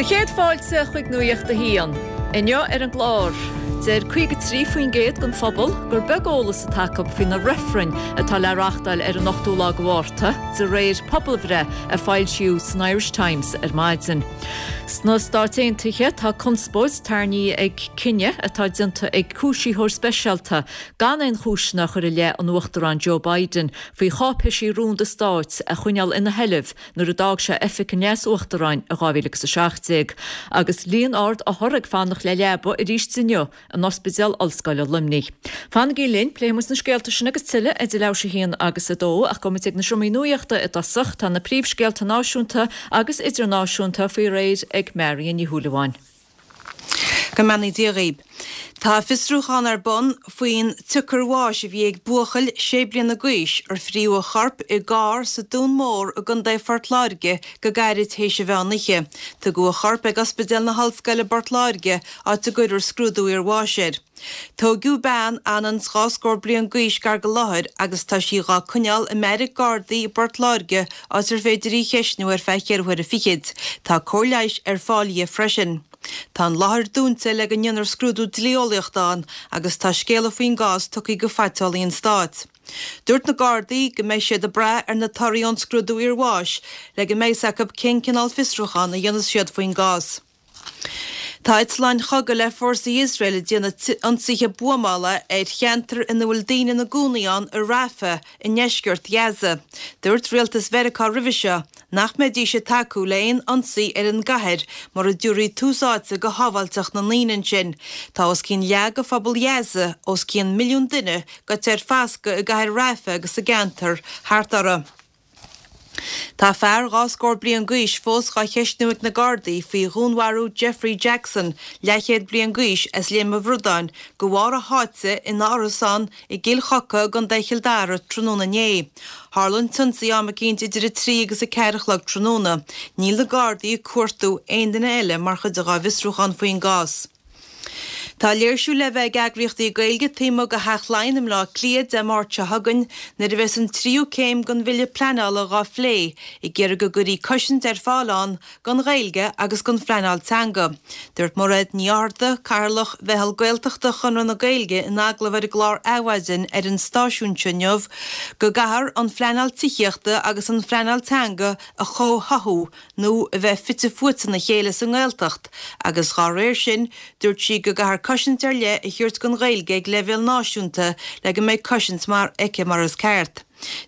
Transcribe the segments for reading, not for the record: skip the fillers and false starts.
Sé chéad fáilte chuig Nuacht a hAon. Inniu ar an gclár, deir 53% den phobal gur beag eolas atá acu faoi na reifrinn atá le reáchtáil ar an 8ú lá de Mhárta, de réir pobalbhreith a foilsíodh san Irish Times ar maidin. Sna Stáit Aontaithe, tá conspóid tarraingthe ag cinneadh atá déanta ag cúisítheoir speisialta gan aon chúiseanna a chur i leith an Uachtaráin Joe Biden faoi cháipéisí rúnda stáit a choinneáil ina sheilbh nuair a d'fhág sé oifig an Leas-Uachtaráin i 2017, agus líon ard othar ag fanacht le leaba arís inniu in Ospidéal Ollscoile Luimnigh. Fanaigí linn, pléifidh muid na scéalta sin agus tuilleadh idir leathuair tar éis a haon agus a dó, ach gabhfaidh muid ag na seomraí nuachta i dtosach. Tá na príomhscéalta náisiúnta agus idirnáisiúnta faoi réir ag Marion Ní Shúilleabháin. Go mbeannaí Dia dhaoib. Tá fiosrúchán ar bun faoin tsiocair bháis a bhí ag buachaill sé bliana d'aois ar fríodh a chorp i gcarr sa Dún Mór i gContae Phort Láirge go gairid théis an mheán oíche. Tugadh a chorp ag Ospidéal na hOllscoile i bPort Láirge, áit a gcuirfear scrúdú iarbháis air. Tóigeadh bean anonn 's dhá scór bliain d'aois gar go láthair agus tá sí dhá coinneáil i mbeairic Gardaí i bPort Láirge áit ar féidir í cheistniú ar feadh cheithre huaire fichid. Tá cóir leighis ar fáil dhi freisin. Tá an láthair dúnta le go ndéanfar scrúdú dlí-eolaíochta ann agus tá scéala faoin gcás tugtha go Phaiteolaí an Stáit. Dúirt na Gardaí go mbeidh siad ag brath ar na torthaí ón scrúdú iarbháis le go mbeidh 's acu cén cineál fiosrúchán a dhéanfas siad faoin gcás. Tá eitleáin chogaidh le fórsaí Iosrael ag déanamh ionsaithe buamála ar cheantar ina bhfuil daoine ina gcónaí ann i Rafah i ndeisceart Ghaza. Dúirt rialtas Mheiriceá roimhe seo nach mbeidís ag tacú le haon ionsaí ar an gcathair mura dtabharfaí tús áite go shábháilteacht na ndaoine ansin. Tá os cionn leath de phobal Ghaza, os cionn milliún duine, gaibhte ar fascadh i gcathair Rafah agus sa gceantar thart uirthi. Tá fear dhá scór bliain d'aois fós dhá cheistniú ag na Gardaí faoi dhúnmharú Jeffrey Jackson, leathchéad bliain d'aois, as Léim an Bhradáin, de bharr a sháite ina árasán i gCill Choca i gContae Chill Dara tráthnóna inné. Tharla an t-ionsaí am eicínt idir 3 agus 4 a chlog tráthnóna. Níl na Gardaí ag cuartú aon duine eile mar chuid dhá bhfiosrúchán faoin gcás. Tá léirsiú le bheith ag eagraíochtaí Gaeilge taobh amuigh de Theach Laighean i mBleá Cliath Dé Máirt seo chugainn nuair a bheas an tríú céim den bhille pleanála dhá phlé, ag iarraidh go gcuirfí cosaint ar fáil ann don Ghaeilge agus don phleanáil teanga. Dúirt Mairéad Ní Fhátharta, Cathaoirleach Mheitheal Gaeltachta Chonradh na Gaeilge in agallamh ar an gclár Adhmhaidin ar an stáisiún seo inniu go gcaithfear an phleanáil tithíochta agus an phleanáil teanga a chomhtháthú nó a bheith fite fuaite ina chéile sa nGaeltacht agus dhá réir sin, dúirt sí go gcaithfear cosaint ar leith a thabhairt don Ghaeilge ag leibhéal náisiúnta le go mbeidh cosaint mar aici mar is ceart.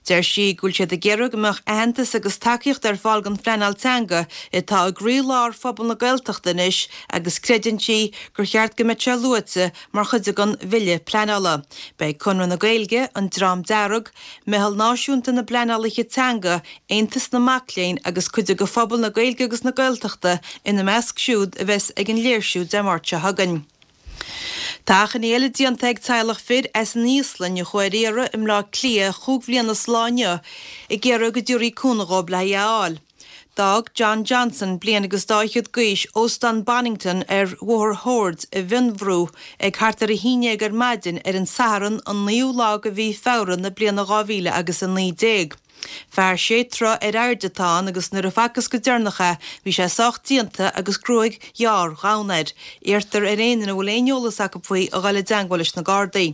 Deir sí go bhfuil siad ag iarraidh go mbeadh aitheantas agus tacaíocht ar fáil don phleanáil teanga atá i gcroí-lár phobal na Gaeltachta anois agus creideann sí gur cheart go mbeadh sé luaite mar chuid den bhille pleanála. Beidh Conradh na Gaeilge, An Dream Dearg, Meitheal Náisiúnta na bPleanálaithe Teanga, Aontas na Mac Léinn agus cuid de phobal na Gaeilge agus na Gaeltachta ina measc siúd a bheas ag an léirsiú Dé Máirt seo chugainn. Tá achainí eile déanta ag teaghlach fir as an Íoslainn a chuaigh ar iarraidh i mBleá Cliath chúig bhliana is lá inniu ag iarraidh go dtabharfaí cúnamh dhóibh le hí a fháil. D'fhág John Johnson, bliain agus dá fhichead d'aois, Óstán Bonnington ar Bhóthar Shoird i bhFionnbhrú ag thart ar 11 ar maidin ar an Satharn an 9ú lá de mhí Feabhra na bliana 2019. Fear sé troigh ar airde atá ann agus nuair a facthas go deireanach é bhí sé sách déanta agus gruaig ghearr dhonn air. Iarrtar ar aon duine a bhfuil aon eolas acu faoi a dhul i dteangmháil leis na Gardaí.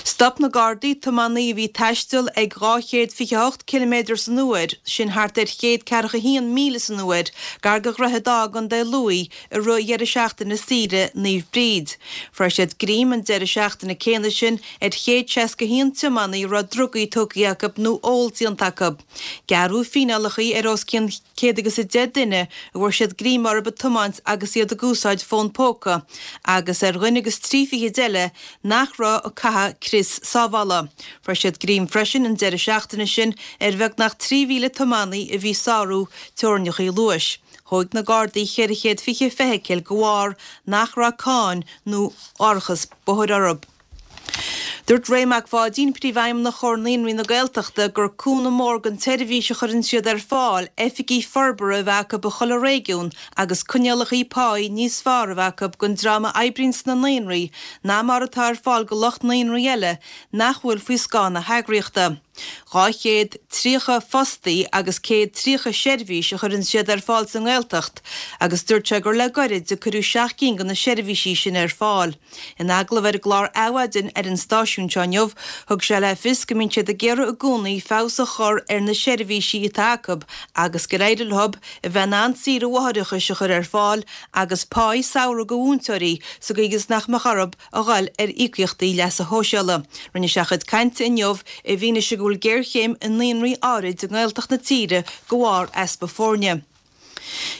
Stop na Gardaí tiománaí a bhí ag taisteal ag 228 ciliméadar san uair, sin thart ar 141 míle san uair, gar do Dhroichead Átha i gContae Lú i rith dheireadh seachtaine saoire Naomh Bríd. Fuair siad greim an deireadh seachtaine céanna sin ar 161 tiománaí a raibh drugaí tógtha acu nó ól déanta acu. Gearradh fíneálacha ar os cionn céad agus 10 duine a bhfuair siad greim orthu ag tiomáint agus iad ag úsáid fón póca agus ar dhuine agus trí fichid eile nach raibh ag caitheamh crios sábhála. Fuair siad greim freisin an deireadh seachtaine sin ar bheagnach 3,000 tiománaí a bhí ag sárú teorainneacha luais. Thóig na Gardaí 420 feithicil de bharr nach raibh cáin nó árachas bóthair orthu. Dúirt Ray Mac Pháidín, Príomhfheidhmeannach Chomhar Naíonraí na Gaeltachta, gur cúnamh mór don tseirbhís a chuireann siad ar fáil oifigí forbartha a bheith acu i chuile réigiún agus coinníollacha páí níos fearr a bheith acu don dream a oibríonn sna naíonraí ná mar atá ar fáil do lucht naíonraí eile nach bhfuil faoi scáth na heagraíochta. 230 fostaí agus 130 seirbhís a chuireann siad ar fáil sa nGaeltacht agus dúirt sé gur le goirid a cuireadh 7 gcinn de na seirbhísí sin ar fáil. In agallamh ar an gclár Adhmhaidin ar an stáisiún seo inniu, thug sé le fios go mbíonn siad ag iarraidh i gcónaí feabhas a chur ar na seirbhísí atá acu agus gur éirigh leo a bheith in ann saoire mháithreachais a chur ar fáil agus páí samhraidh do mhúinteoirí sa gcaoi is nach mbeadh orthu a dhul ar íocaíochtaí leasa shóisialaigh. Rinne sé a chuid cainte inniu i bhfianaise go bhfuil géarchéim i naíonraí áirid i nGaeltacht na tíre de bharr easpa foirne.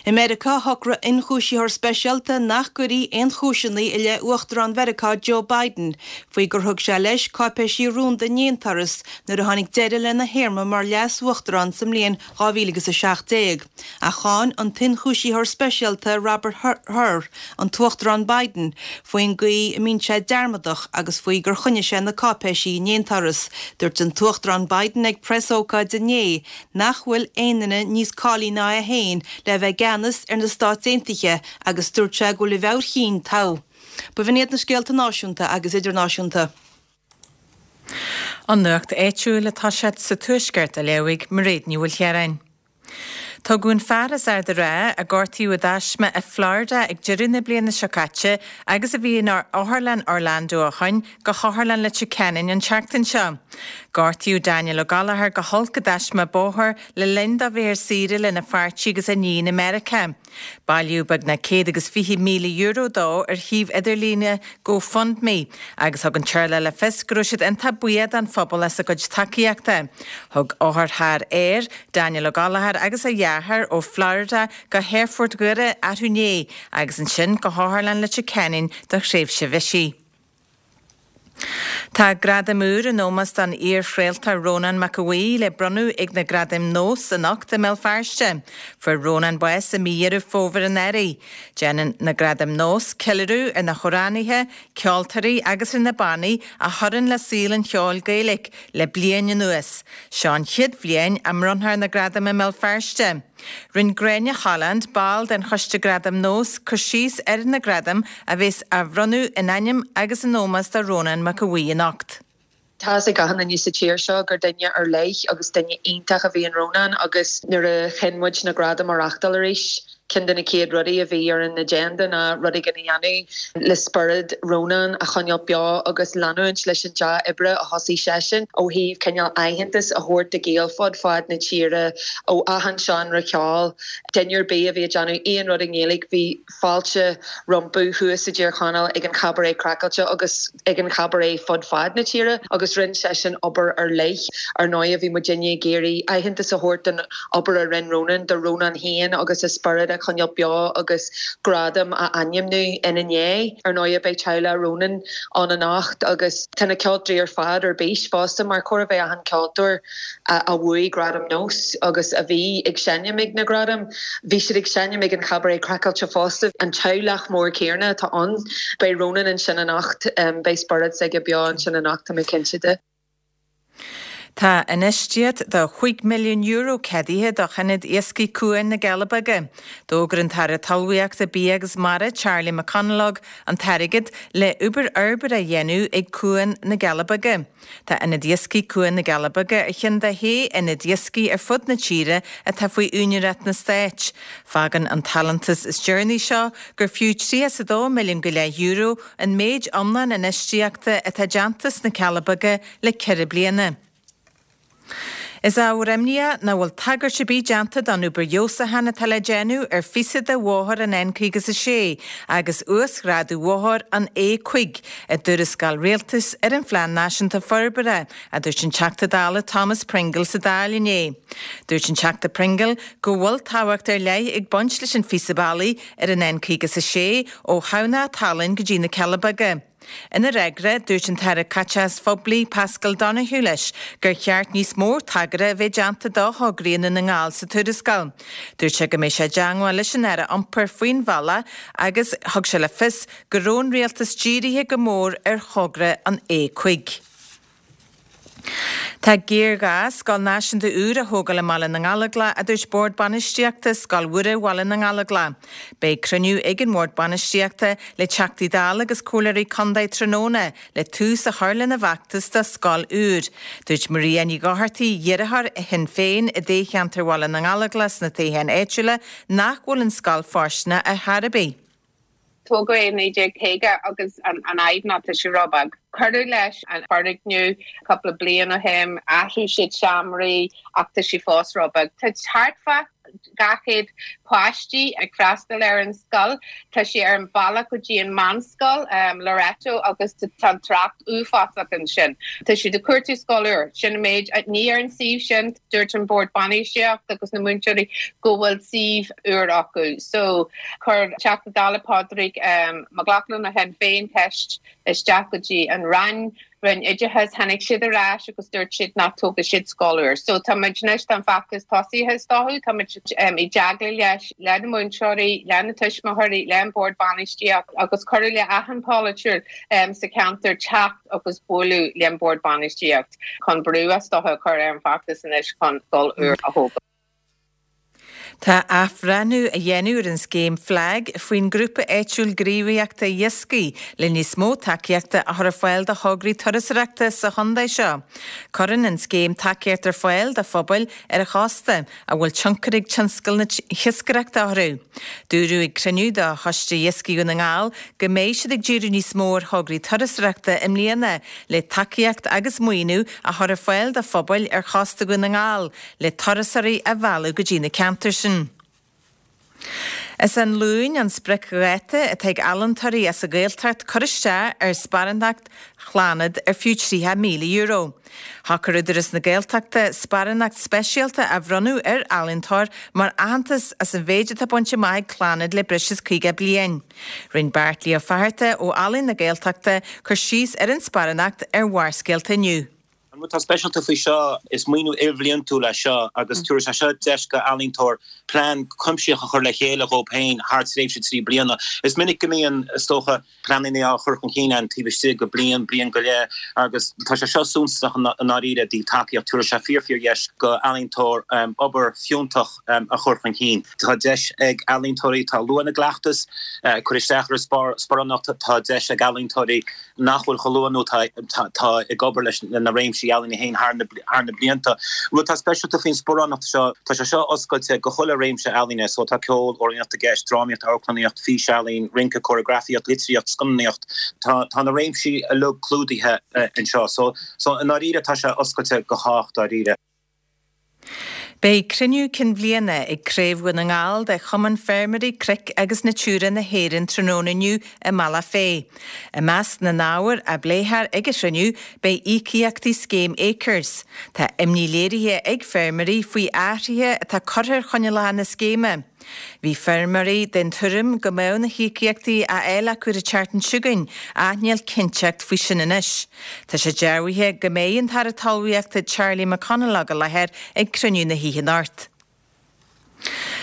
I Meiriceá, shocraigh ionchúisitheoir speisialta nach gcuirfí aon chúiseanna i leith Uachtarán Mheiriceá Joe Biden faoi gur thug sé leis cáipéisí rúnda in aon turas nuair a tháinig deireadh lena théarma mar leas-uachtarán sa mbliain 2017. Ach cháin an t-ionchúisitheoir speisialta Robert Hur an tUachtarán Biden faoin gcaoi a mbíonn sé dearmadach agus faoi gur choinnigh sé na cáipéisí in aon turas. Dúirt an tUachtarán Biden ag preasócáid inné nach bhfuil aon duine níos cáilithe ná é féin le bheith i gceannas ar na Stáit Aontaithe agus dúirt sé go bhfuil a mheabhair chinn togha. B'in iad na scéalta náisiúnta agus idirnáisiúnta. An nuacht áitiúil atá sé sa Tuaisceart a léifidh Mairéad Ní Mhaoilchiaráin. Tugadh an fear as Ard an Rátha, a gortaíodh i dtaisme i Florida ag deireadh na bliana seo caite agus a bhí in Otharlann Orlando ó shoin, go hOtharlann Leitir Ceanainn an tseachtain seo. Gortaíodh Daniel Ó Gallchóir go holc i dtaisme bóthair le linn dó bheith ar saoire lena pháirtí agus a iníon i Meiriceá. Bailíodh beagnach €120,000 dó ar shuíomh idirlíne GoFundMe agus thug an teaghlach le fios go raibh siad iontach buíoch don phobal as a gcuid tacaíochta. Thug otharcharr air, Daniel Ó Gallchóir agus a dheartháir ó Florida go hAerfort Dhoire arú inné agus ansin go hOtharlann Leitir Ceanainn do thréimhse bhisigh. Tá gradam úr in ómós don iar-chraoltóir Rónán Mac Aodha Bhuí le bronnadh ag na Gradaim Nós anocht i mBéal Feirste. Fuair Rónán bás i mí Dheireadh Fómhair anuraidh. Déanann na Gradaim Nós ceiliúradh ar na hamhránaithe, ceoltóirí agus ar na bannaí a chuireann le saol an cheoil Gaeilge le bliain anuas. Seo an chéad bhliain a mbronnfar na gradaim i mBéal Feirste. Rinne Gráinne Holland, ball den Choiste Gradam Nós, cur síos ar na gradaim a bheas á bhronnadh in ainm agus in ómós do Rónán Mac Aodha Bhuí anocht. Tá fhios ag achan duine sa tír seo gur duine ar leith agus duine iontach a bhí in Rónán agus nuair a chinn muid na gradaim a reáchtáil arís, ceann de na chéad rudaí a bhí ar an agenda ná rud éigin a dhéanamh le spiorad Rónán a choinneáil beo agus leanúint leis an dea-oibre a thosaigh seisean ó thaobh cineál aitheantas a thabhairt do Ghaeil fud fad na tíre ó achan seánra ceoil. Duine ar bith a bhí ag déanamh aon rud i nGaeilge bhí fáilte rompu thuas i dTír Chonaill ag an Chabaret Craiceáilte agus ag an Chabaret fud fad na tíre agus rinne seisean obair ar leith. Ar ndóigh bhí muidinne ag iarraidh aitheantas a thabhairt don obair a rinne Rónán, do Rónán féin agus a spiorad a choinneáil beo agus gradam a ainmniú ina ndiaidh. Ar ndóigh beidh teaghlach Rónán ann anocht agus tá na ceoltóirí ar fad ar bís fosta mar chóir a bheith achan ceoltóir a bhuaigh Gradam Nós agus a bhí ag seinm ag na Gradaim, bhí siad ag seinm ag an Chabaret Craiceáilte fosta. An teaghlach mór céanna atá ann. Beidh Rónán ansin anocht, beidh spiorad s'aige beo ansin anocht, tá mé cinnte de. Tá infheistíocht de €5 milliún ceadaithe do Ionad Iascaigh Cuan na gCealla Beaga. D'fhógair an tAire Talmhaíochta, Bia agus Mara, Charlie McConalogue, an t-airgead le obair fhorbartha a dhéanamh ag Cuan na gCealla Beaga. Tá Ionad Iascaigh Cuan na gCealla Beaga ar cheann de shé ionad iascaigh ar fud na tíre atá faoi úinéireacht na Stáit. Fágann an t-allúntas is deireanaí seo gur fiú €32 milliún go leith an méid iomlán infheistíochta atá déanta sna Cealla Beaga le ceithre bliana. Is ábhar imníoch nach bhfuil tagairt ar bith déanta don obair fheabhsúcháin atá le déanamh ar phíosa de bhóthar an N56 agus uasghrádú bhóthar an A5 i dtuarascáil rialtais ar an Phlean Náisiúnta Forbartha, a dúirt an Teachta Dála Thomas Pringle sa Dáil inné. Dúirt an Teachta Pringle go bhfuil tábhacht ar leith ag baint leis an phíosa bealaigh ar an N56 ó Thamhnach Tallann go dtí na Cealla Beaga. Ina fhreagra, dúirt an tAire Caiteachais Phoiblí Paschal Donohoe leis gur cheart níos mó tagartha a bheith déanta do thograí i nDún na nGall sa tuarascáil. Dúirt sé go mbeidh sé i dteangmháil leis an Aire Iompair faoin bhealach agus thug sé le fios go raibh an Rialtas dírithe go mór ar thogra an A5. Tá géarghá scoil náisiúnta úr a thógáil i mBaile na nGallóglach, a dúirt Bord Bainistíochta Scoil Mhuire Bhaile na nGallóglach. Beidh cruinniú ag an mBord Bainistíochta le Teachtaí Dála agus Comhairleoirí Contae tráthnóna le tús a chur lena bhfeachtas do scoil úr. Dúirt Maria Ní Dhochartaigh, iarrthóir Shinn Féin i dtoghcheantar Bhaile na nGallóglach sna toghcháin áitiúla, nach bhfuil an scoil fóirsteanach ar chor ar bith. Tógadh é i 1950 agus an fhadhb ná tá sé róbheag. Cuireadh leis an foirgneamh cúpla bliain ó shin, athraigh siad seomraí ach tá sé fós róbheag. Tá thart fá 200 páistí ag freastal ar an scoil. Tá sé ar an bhealach go dtí an meánscoil, Loreto, agus tá an trácht uafásach ansin. Tá siad ag cuartú scoil úr. Sin an méid. Ní ar an suíomh sin. Dúirt an Bord Bainistíochta agus na múinteoirí go bhfuil suíomh úr acu. So, chuir Teachta Dála Pádraig Mac Lochlainn ó Shinn Féin ceist isteach go dtí an Roinn, Roinn Oideachais, tháinig siad ar ais agus dúirt siad nach dtógfaidh siad scoil úr. So, tá muid anois, tá an feachtas tosaithe is dócha, tá muid i dteagmháil leis, le na múinteoirí, le na tuismitheoirí, le an Bord Bainistíochta agus cuireadh le achan polaiteoir sa cheantar teacht agus bualadh le an Bord Bainistíochta. chun brú is dócha a chur ar an bhfeachtas anois chun scoil úr a thógáil. Tá athbhreithniú á dhéanamh ar an scéim FLAG faoin nGrúpa Áitiúil Gníomhaíochta Iascaigh le níos mó tacaíochta a chur ar fáil do thograí turasóireachta sa chontae seo. Cuireann an scéim tacaíocht ar fáil do phobail ar an chósta a bhfuil tionchar ag tionscal na hiascaireachta orthu. Dúradh ag cruinniú de Choiste Iascaigh Dhún na nGall go mbeidh siad ag díriú níos mó ar thograí turasóireachta i mbliana le tacaíocht agus maoiniú a chur ar fáil do phobail ar chósta Dhún na nGall le turasóirí a mhealladh go dtí na ceantair sin. Is an Luan an spriocdháta atá ag ealaíontóirí as an Ghaeltacht cur isteach ar sparántacht Chlannad ar fiú €30,000. Shocair Údarás na Gaeltachta sparánacht speisialta a bhronnadh ar ealaíontóir mar aitheantas as an mhéid atá bainte amach ag Clannad le breis is 50 bliain. Rinne Beairtlí Ó Fatharta ó Ealaín na Gaeltachta cur síos ar an sparánacht ar Bharrscéalta inniu. An rud atá speisialta faoi seo, is maoiniú ilbhliantúil é seo agus tabharfaidh sé seo deis go ealaíontóir plean cuimsitheach a chur le chéile dhóibh féin thar tréimhse 3 bliana. Is minic go mbíonn, is dócha, pleananna á chur chun cinn ann taobh istigh de bliain, bliain go leith agus tá sé seo suntasach i ndáiríre i dtaobh tacaíocht. Tabharfaidh sé fíor fíor dheis go ealaíontóir obair fiúntach a chur chun cinn. Tá deis ag ealaíontóirí atá luath ina gcleachtas cur isteach ar an sparánacht, tá deis ag ealaíontóirí nach bhfuil chomh luath nó atá ag obair leis na réimsí ealaíne féin thar na blianta. Rud atá speisialta faoin sparánacht seo, tá sé seo oscailte go chuile réimse ealaíne, so tá ceol, amhránaíocht i gceist, drámaíocht, amharclannaíocht, físealaín, rince, cóireagrafaíocht, litríocht, scannánaíocht, tá tá na réimsí uilig clúdaithe anseo. So so i ndáiríre tá sé oscailte go chách dáiríre. Beidh cruinniú cinn bhliana ag Craobh Dhún na nGall de Chumann Feirmeoirí Cnoic agus Natura na hÉireann tráthnóna inniu i mBealach Féich. I measc na n-ábhar a bpléifear ag an chruinniú beidh íocaíochtaí scéim Acres. Tá imní léirithe ag feirmeoirí faoi athruithe atá curtha ar choinníollacha na scéime. Bhí feirmeoirí den tuairim go mbeadh na híocaíochtaí á fháil acu an tseachtain seo chugainn ach níl cinnteacht faoi sin anois. Tá sé dearbhaithe go mbeidh an tAire Talmhaíochta Charlie McConalogue i láthair ag cruinniú na hoíche anocht.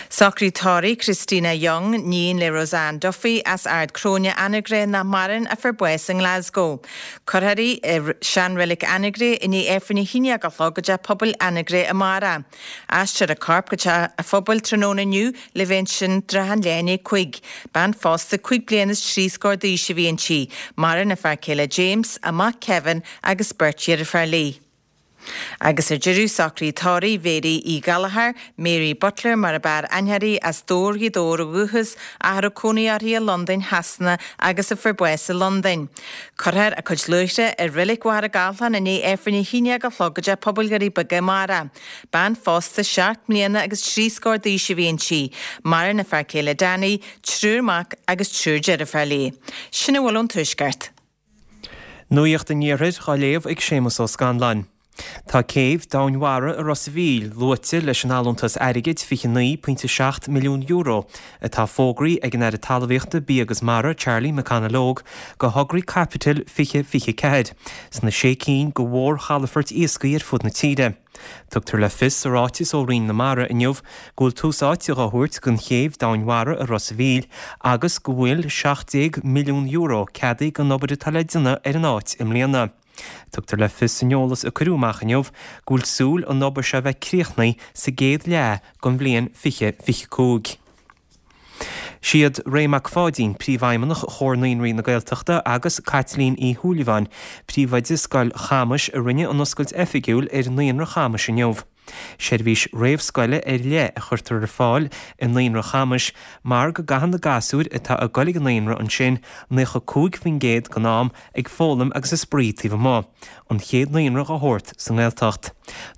Socraid tórraimh Christina Young, níon le Roseanne Duffy as Ard Cróine, Anagaire nach maireann a fuair bás i nGlasgow. Cuirfear í i seanreilig Anagaire i ndiaidh Aifreann a haon déag a chlog i dTeach Pobail Anagaire amárach. Aistreofar a corp go teach a phobail tráthnóna inniu le bheith ansin trátha an leath i ndiaidh 5. Bean phósta cúig bliana is trí scór d'aois a bhí inti. Maireann a fear céile James, a mac Kevin agus beirt dheirféar léi. Agus ar deireadh, socraid tórraimh Mhéirí Uí Ghallchóir, Mary Butler mar ab fhearr aithne uirthi, as Dobhar Ghaoth Dobhair ó dhúchas, ach a raibh cónaí uirthi i Londain Shasana agus a fuair bás i Londain. Cuirfear a cuid luaithre i Reilig Mhachaire Gathlán i ndiaidh Aifreann a haon déag a chlog i dTeach Pobail Dhoirí Beaga amárach. Bean phósta seacht mbliana agus trí scór d'aois a bhí inti. Maireann a fear céile Danny, triúr mac agus triúr deirféar léi. Sin a bhfuil ón Tuaisceart. Nuacht an Iarthair á léamh ag Séamus Ó Scanláin. Tá céibh domhainmhara i Ros a' Mhíl luaite leis an allúntas airgid €29.7 milliún atá fógraithe ag an Aire Talmhaíochta, Bia agus Mara, Charlie McConalogue, do thograí caipitil 2024 sna sé cinn de mhórchalafoirt iascaigh ar fud na tíre. Tugtar le fios sa ráiteas ó Roinn na Mara inniu go bhfuil tús áite dhá thabhairt don chéibh domhainmhara i Ros a' Mhíl agus go bhfuil €17 milliún ceadaithe don obair atá le déanamh ar an áit i mbliana. Tugtar le fios san eolas a cuireadh amach inniu go bhfuil súil an obair seo a bheith críochnaithe sa gcéad leath den bhliain 2025. Siad Ray Mac Pháidín, Príomhfheidhmeannach Chomhar Naíonraí na Gaeltachta agus Caitlín Uí Shúilleabháin, Príomhoide Scoil Chamais a rinne an oscailt oifigiúil ar Naíonra Chamais inniu. Seirbhís réamhscoile ar leith a chuirtear ar fáil i Naíonra Chamais mar go gcaitheann na gasúir atá ag goil ag an naíonra ansin 95% den am ag foghlaim agus ag spraoi taobh amuigh, an chéad naíonra dá shórt sa nGaeltacht.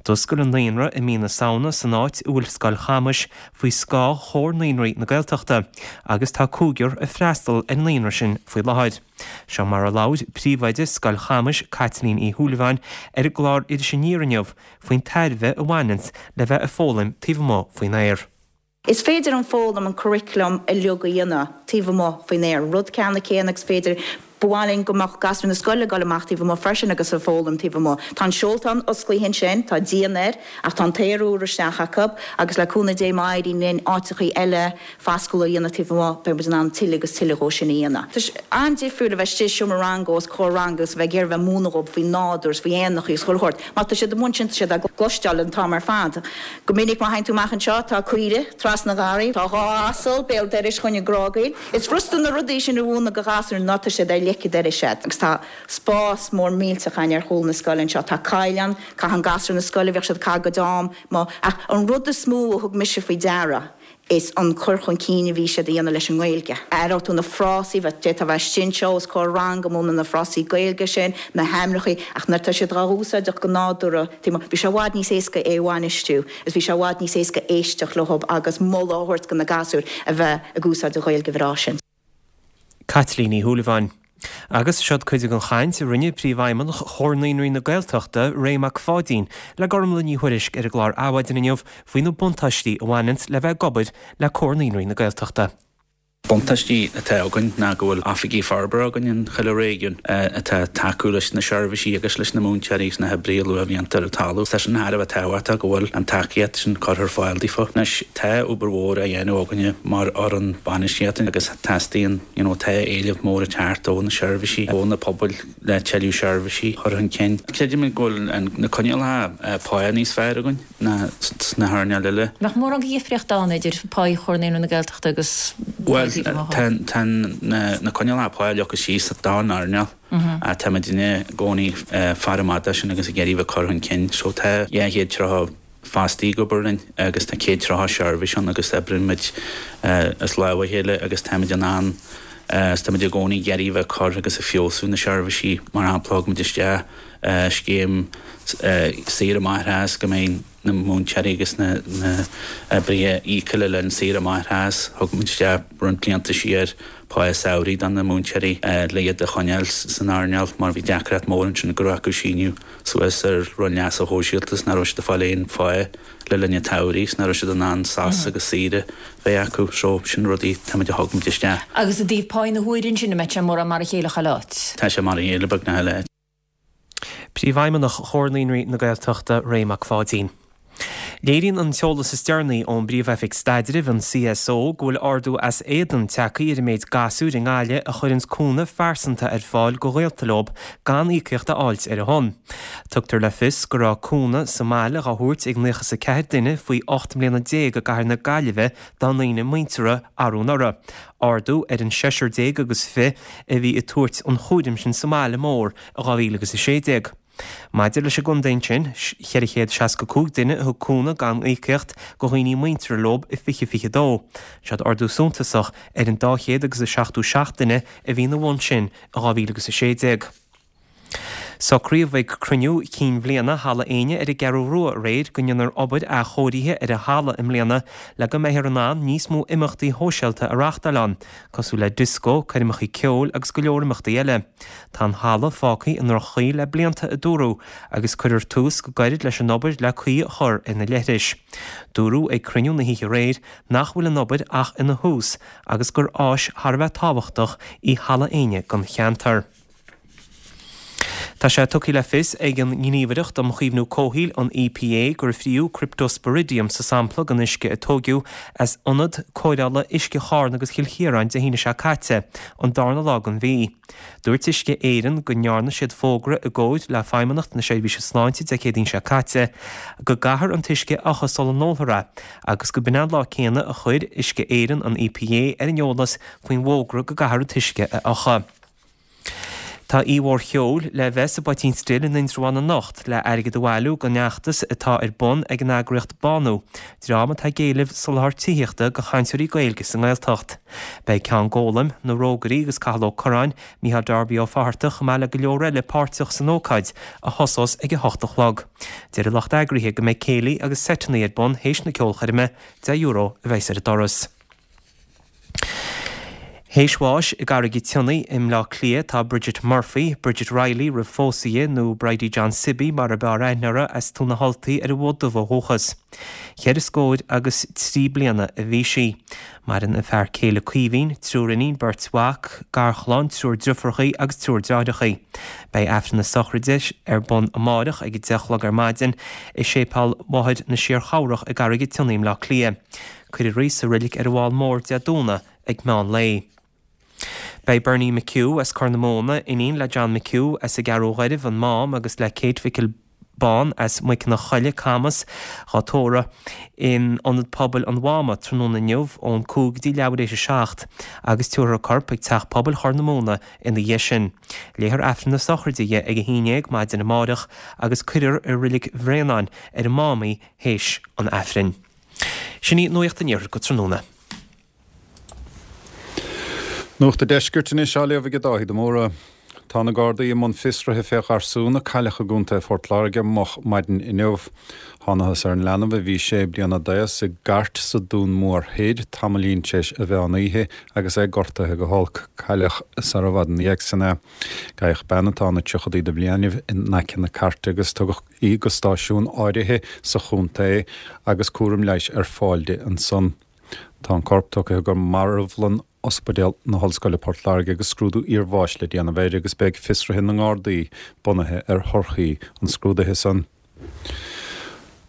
D'oscail an naíonra i mí na Samhna san áit a bhfuil Scoil Chamais faoi scáth Chomhar Naíonraí na Gaeltachta agus tá cúigear ag freastal ar an naíonra sin faoi láthair. Seo mar a labhair príomhoide Scoil Chamais, Caitlín Uí Shúilleabháin, ar an gclár Iris Aniar inniu faoin tairbhe a bhaineanns le bheith ag foghlaim taobh amuigh faoin aer. Is féidir an foghlaim, an curriculum uilig a dhéanamh taobh amuigh faoin aer, rud ceanna céanna agus féidir, ba mhaith linn go mbeadh gasúir na scoile ag dul amach taobh amuigh freisin agus ag foghlaim taobh amuigh. Tá an seoltán osclaithe ansin, tá díon air ach tá an t-aer úr isteach acu agus le cúnamh Dé má éiríonn linn áiteachaí eile foscúla a dhéanamh taobh amuigh, beidh muid in ann tuilleadh agus tuilleadh dhó sin a dhéanamh. Tá sé an-difriúil a bheith istigh i seomra ranga os comhair ranga agus a bheith ag iarraidh a bheith ag múineadh dhóibh faoin nádúr is faoi éanachaí agus chuile shórt. Má tá siad amuigh ansin tá siad á gcloisteáil an t-am ar fad. Go minic má théann tú amach anseo tá caoire trasna an gharraí, tá dhá asal béal dorais chugainn ag grágaíl. Is furasta na rudaí sin a mhúineadh do ghasúir ná tá siad ar leic an dorais agat. Agus tá spás mór millteach againn ar chúl na scoile anseo. Tá coill ann, caitheann gasúir na scoile, bhíodh siad ag caitheamh a gcuid am amuigh. Ach an rud is mó a thug mise faoi deara, is an cur chun cinn a bhí siad a dhéanamh leis an nGaeilge. Aireoidh tú na frásaí, d'fhéadfá a bheith istigh anseo os comhair ranga ag múineadh na frásaí Gaeilge sin, na hainmneachaí, ach nuair atá siad dhá úsáideach go nádúrtha, bhí sé i bhfad níos éasca é a bhainistiú is bhí sé i bhfad níos éasca éisteacht leo agus moladh a thabhairt do na gasúir a bheith ag úsáid an Ghaeilge bhreá sin. Caitlín Ní Shúilleabháin. Agus seod cuid den chaint a rinne Príomhfheidhmeannach Chomhar Naíonraí na Gaeltachta, Ray Mac Pháidín, le Gormlaith Ní Thuairisg ar an gclár Adhmhaidin inniu faoi na buntáistí a bhaineanns le bheith ag obair le Comhar Naíonraí na Gaeltachta. Buntáistí atá againn ná go bhfuil oifigigh forbartha againn in chuile réigiún atá ag tacú leis na seirbhísí agus leis na múinteoirí agus na hoibrithe luathbhlianta ar an talamh. Tá sin thar a bheith tábhachtach go bhfuil an tacaíocht sin curtha ar fáil daofa. Anois, tá obair mhór á dhéanamh againne mar fhoireann bainistíochta agus teastaíonn, you know, tá éileamh mór ag teacht ó na seirbhísí, ó na pobail le tuilleadh seirbhísí a chur chun cinn. Creidimid go bhfuil na coinníollacha pá níos fearr againn ná sna hearnáil eile. Nach mórán de dhifríocht ann idir pá Chomhar Naíonraí na Gaeltachta agus Bhuel, tá tá na coinníollacha pá leagtha síos don earnáil. Tá muidinne i gcónaí ag faire amach dó sin agus ag iarraidh bheith ag cur chun cinn. So tá 230 fostaí ag obair linn agus tá 130 seirbhís ann agus oibríonn muid as lámh a chéile agus táimid in ann is táimid i gcónaí ag iarraidh bheith ag cur agus ag feabhsú na seirbhísí. Mar shampla, thug muid isteach scéim saoire máithreachais go mbeidh na múinteoirí agus na hoibrithe íoctha le linn saoire máithreachais. Thug muid isteach roinnt blianta siar pá samhraidh do na múinteoirí le iad a choinneáil san earnáil mar bhí deacracht mór ansin go raibh acu síniú suas ar Roinn Leasa Shóisialta is nach raibh siad ag fáil aon phá le linn an tsamhraidh is nach raibh siad in ann sos agus saoire bheith acu. So, sin rudaí táimid a thug muid isteach. Agus i dtaobh pá na huaire ansin, an mbeidh sé mórán mar a chéile chuile áit? Tá sé mar a chéile beagnach chuile áit. Príomhfheidhmeannach Chomhar Naíonraí na Gaeltachta, Ray Mac Pháidín. Léiríonn an t-eolas is deireanaí ón bPríomh-Oifig Staidrimh, an CSO, go bhfuil ardú as éadan tagtha ar an méid gasúir i nGaillimh a chuireanns cúnamh phearsanta ar fáil go ghaolta leob gan íocaíocht a fháilt ar a shon. Tugtar le fios go raibh cúnamh sa mbaile dhá thabhairt ag 94 duine faoi 18 mbliana i gcathair na Gaillimhe dá ndaoine muinteartha arú anuraidh, ardú ar an seisear déag agus fi a bhí ag tabhairt an chúraim sin sa mbaile mór i 2016. Maidir leis an gcontae ansin, 465 duine a thug cúnamh gan íocaíocht go dhaoine muinteartha leob i 2022. Seod ardú suntasach ar an 200 agus 77 duine a bhí ina bhun sin i 2016. Socraíodh ag cruinniú cinn bhliana Halla Éinne ar an gCeathrú Rua aréir go ndéanfar obair athchóirithe ar an halla i mbliana le go mbeifear in ann níos mó imeachtaí shóisialta a reáchtáil ann, cosúil le dioscó, coirmeacha ceoil agus go leor imeachtaí eile. Tá an halla fágtha i ndroch-chaoi le blianta, a dúradh, agus cuirfear tús go gairid leis an obair le caoi a chur ar na leithris. Dúradh ag cruinniú na hoíche aréir nach bhfuil an obair ach ina thús agus gur áis thar a bheith tábhachtach í Halla Éinne don cheantar. Tá sé tugtha le fios ag an nGníomhaireacht um Chaomhnú Comhshaoil, an EPA, gur fríodh Cryptosporidium sa sampla den uisce a tóigeadh as ionad cóireála uisce Charna agus Chill Chiaráin Dé haoine seo caite, an darna lá den mhí. Dúirt Uisce Éireann go ndearna siad fógra i gcomhair le Feidhmeannacht na Seirbhíse Sláinte Dé Céadaoin seo caite go gcaithfear an t-uisce a fhiuchadh sula n-ólfar é agus go b'in an lá céanna a chuir Uisce Éireann an EPA ar an eolas faoin bhfógra go gcaithfear an t-uisce a fhiuchadh. Tá oíche mhór cheoil le bheith sa bPoitín Stil in Indreabhán anocht le airgead a bhailiú don fheachtas atá ar bun ag an eagraíocht Bánú, dream atá ag éileamh soláthar tithíochta do chainteoirí Gaeilge sa nGaeltacht. Beidh Ceann Gólaim, Na Rógairí agus Cathal Ó Curráin, Mícheál Darby Ó Fatharta chomh maith le go leor eile páirteach san ócáid, a thosós ag a hocht a chlog. Deir an lucht eagraithe go mbeidh céilí agus seiteanna ar bun théis na ceolchoirme, €10 a bheas ar an doras. Théis bháis i gCarraig an tSionnaigh i mBleá Cliath tá Bridget Murphy, Bridget Reilly roimh phósadh di, nó Bridie John Sibby mar ab fhearr aithne uirthi, as Tóin na hUltaí ar an bhFód Dubh ó dhúchas. Cheithre scór agus 3 bliana a bhí sí. Maireann a fear céile Caoimhín, triúr iníon, beirt mhac, garchlann, triúr driofúrachaí agus triúr deartháireachaí. Beidh Aifreann na sochraide ar bun amáireach ag a 10 a chlog ar maidin i Séipéal Mháthair na Síor-Chabhrach i gCarraig an tSionnaigh i mBleá Cliath. Cuirfear í sa roilig ar an bhFál Mór Dé Domhnaigh ag meán lae. Beidh Bernie McHugh as Corr na Móna, iníon le John McHugh as an gCeathrú Ghairbh, an Mám, agus le Kate Mhicil Bán as Muiceanna Choille, Camas, dhá tórramh in Ionad Pobail an Mháma tráthnóna inniu ón 5 go dtí leathuair éis 7 agus tabharfar a corp ag Teach Pobail Chorr na Móna ina dhiaidh sin. Léifear Aifreann na sochraide dhi ag 11 maidin amáireach agus cuirfear i Roilig Bhréanainn ar an Mám í théis an Aifrinn. Sin í Nuacht an Iarthair go tráthnóna. Nuacht an Deiscirt anois á léamh ag Dáithí de Mórdha. Tá na Gardaí i mbun fiosraithe fé gharsún a cailleadh i gContae Phort Láirge moch maidin inniu. Thánathas ar an leanbh a bhí sé bliana d'aos i gcairt sa Dún Mór Thoir tamaillín tar éis an mheán oíche agus é gortaithe go holc. Cailleadh sara bhfad ina dhiaidh sin é. Gabhadh bean atá ina tríochadaí de bhliainibh in aice na cairte agus tugadh í go stáisiún áirithe sa chontae agus cúram leighis ar fáil di ansan. Tá an corp tugtha go marbhlann Ospidéal na hOllscoile Port Láirge agus scrúdú iarbháis le déanamh air agus beidh fiosruithe na nGardaí bunaithe ar thorthaí an scrúdaithe san.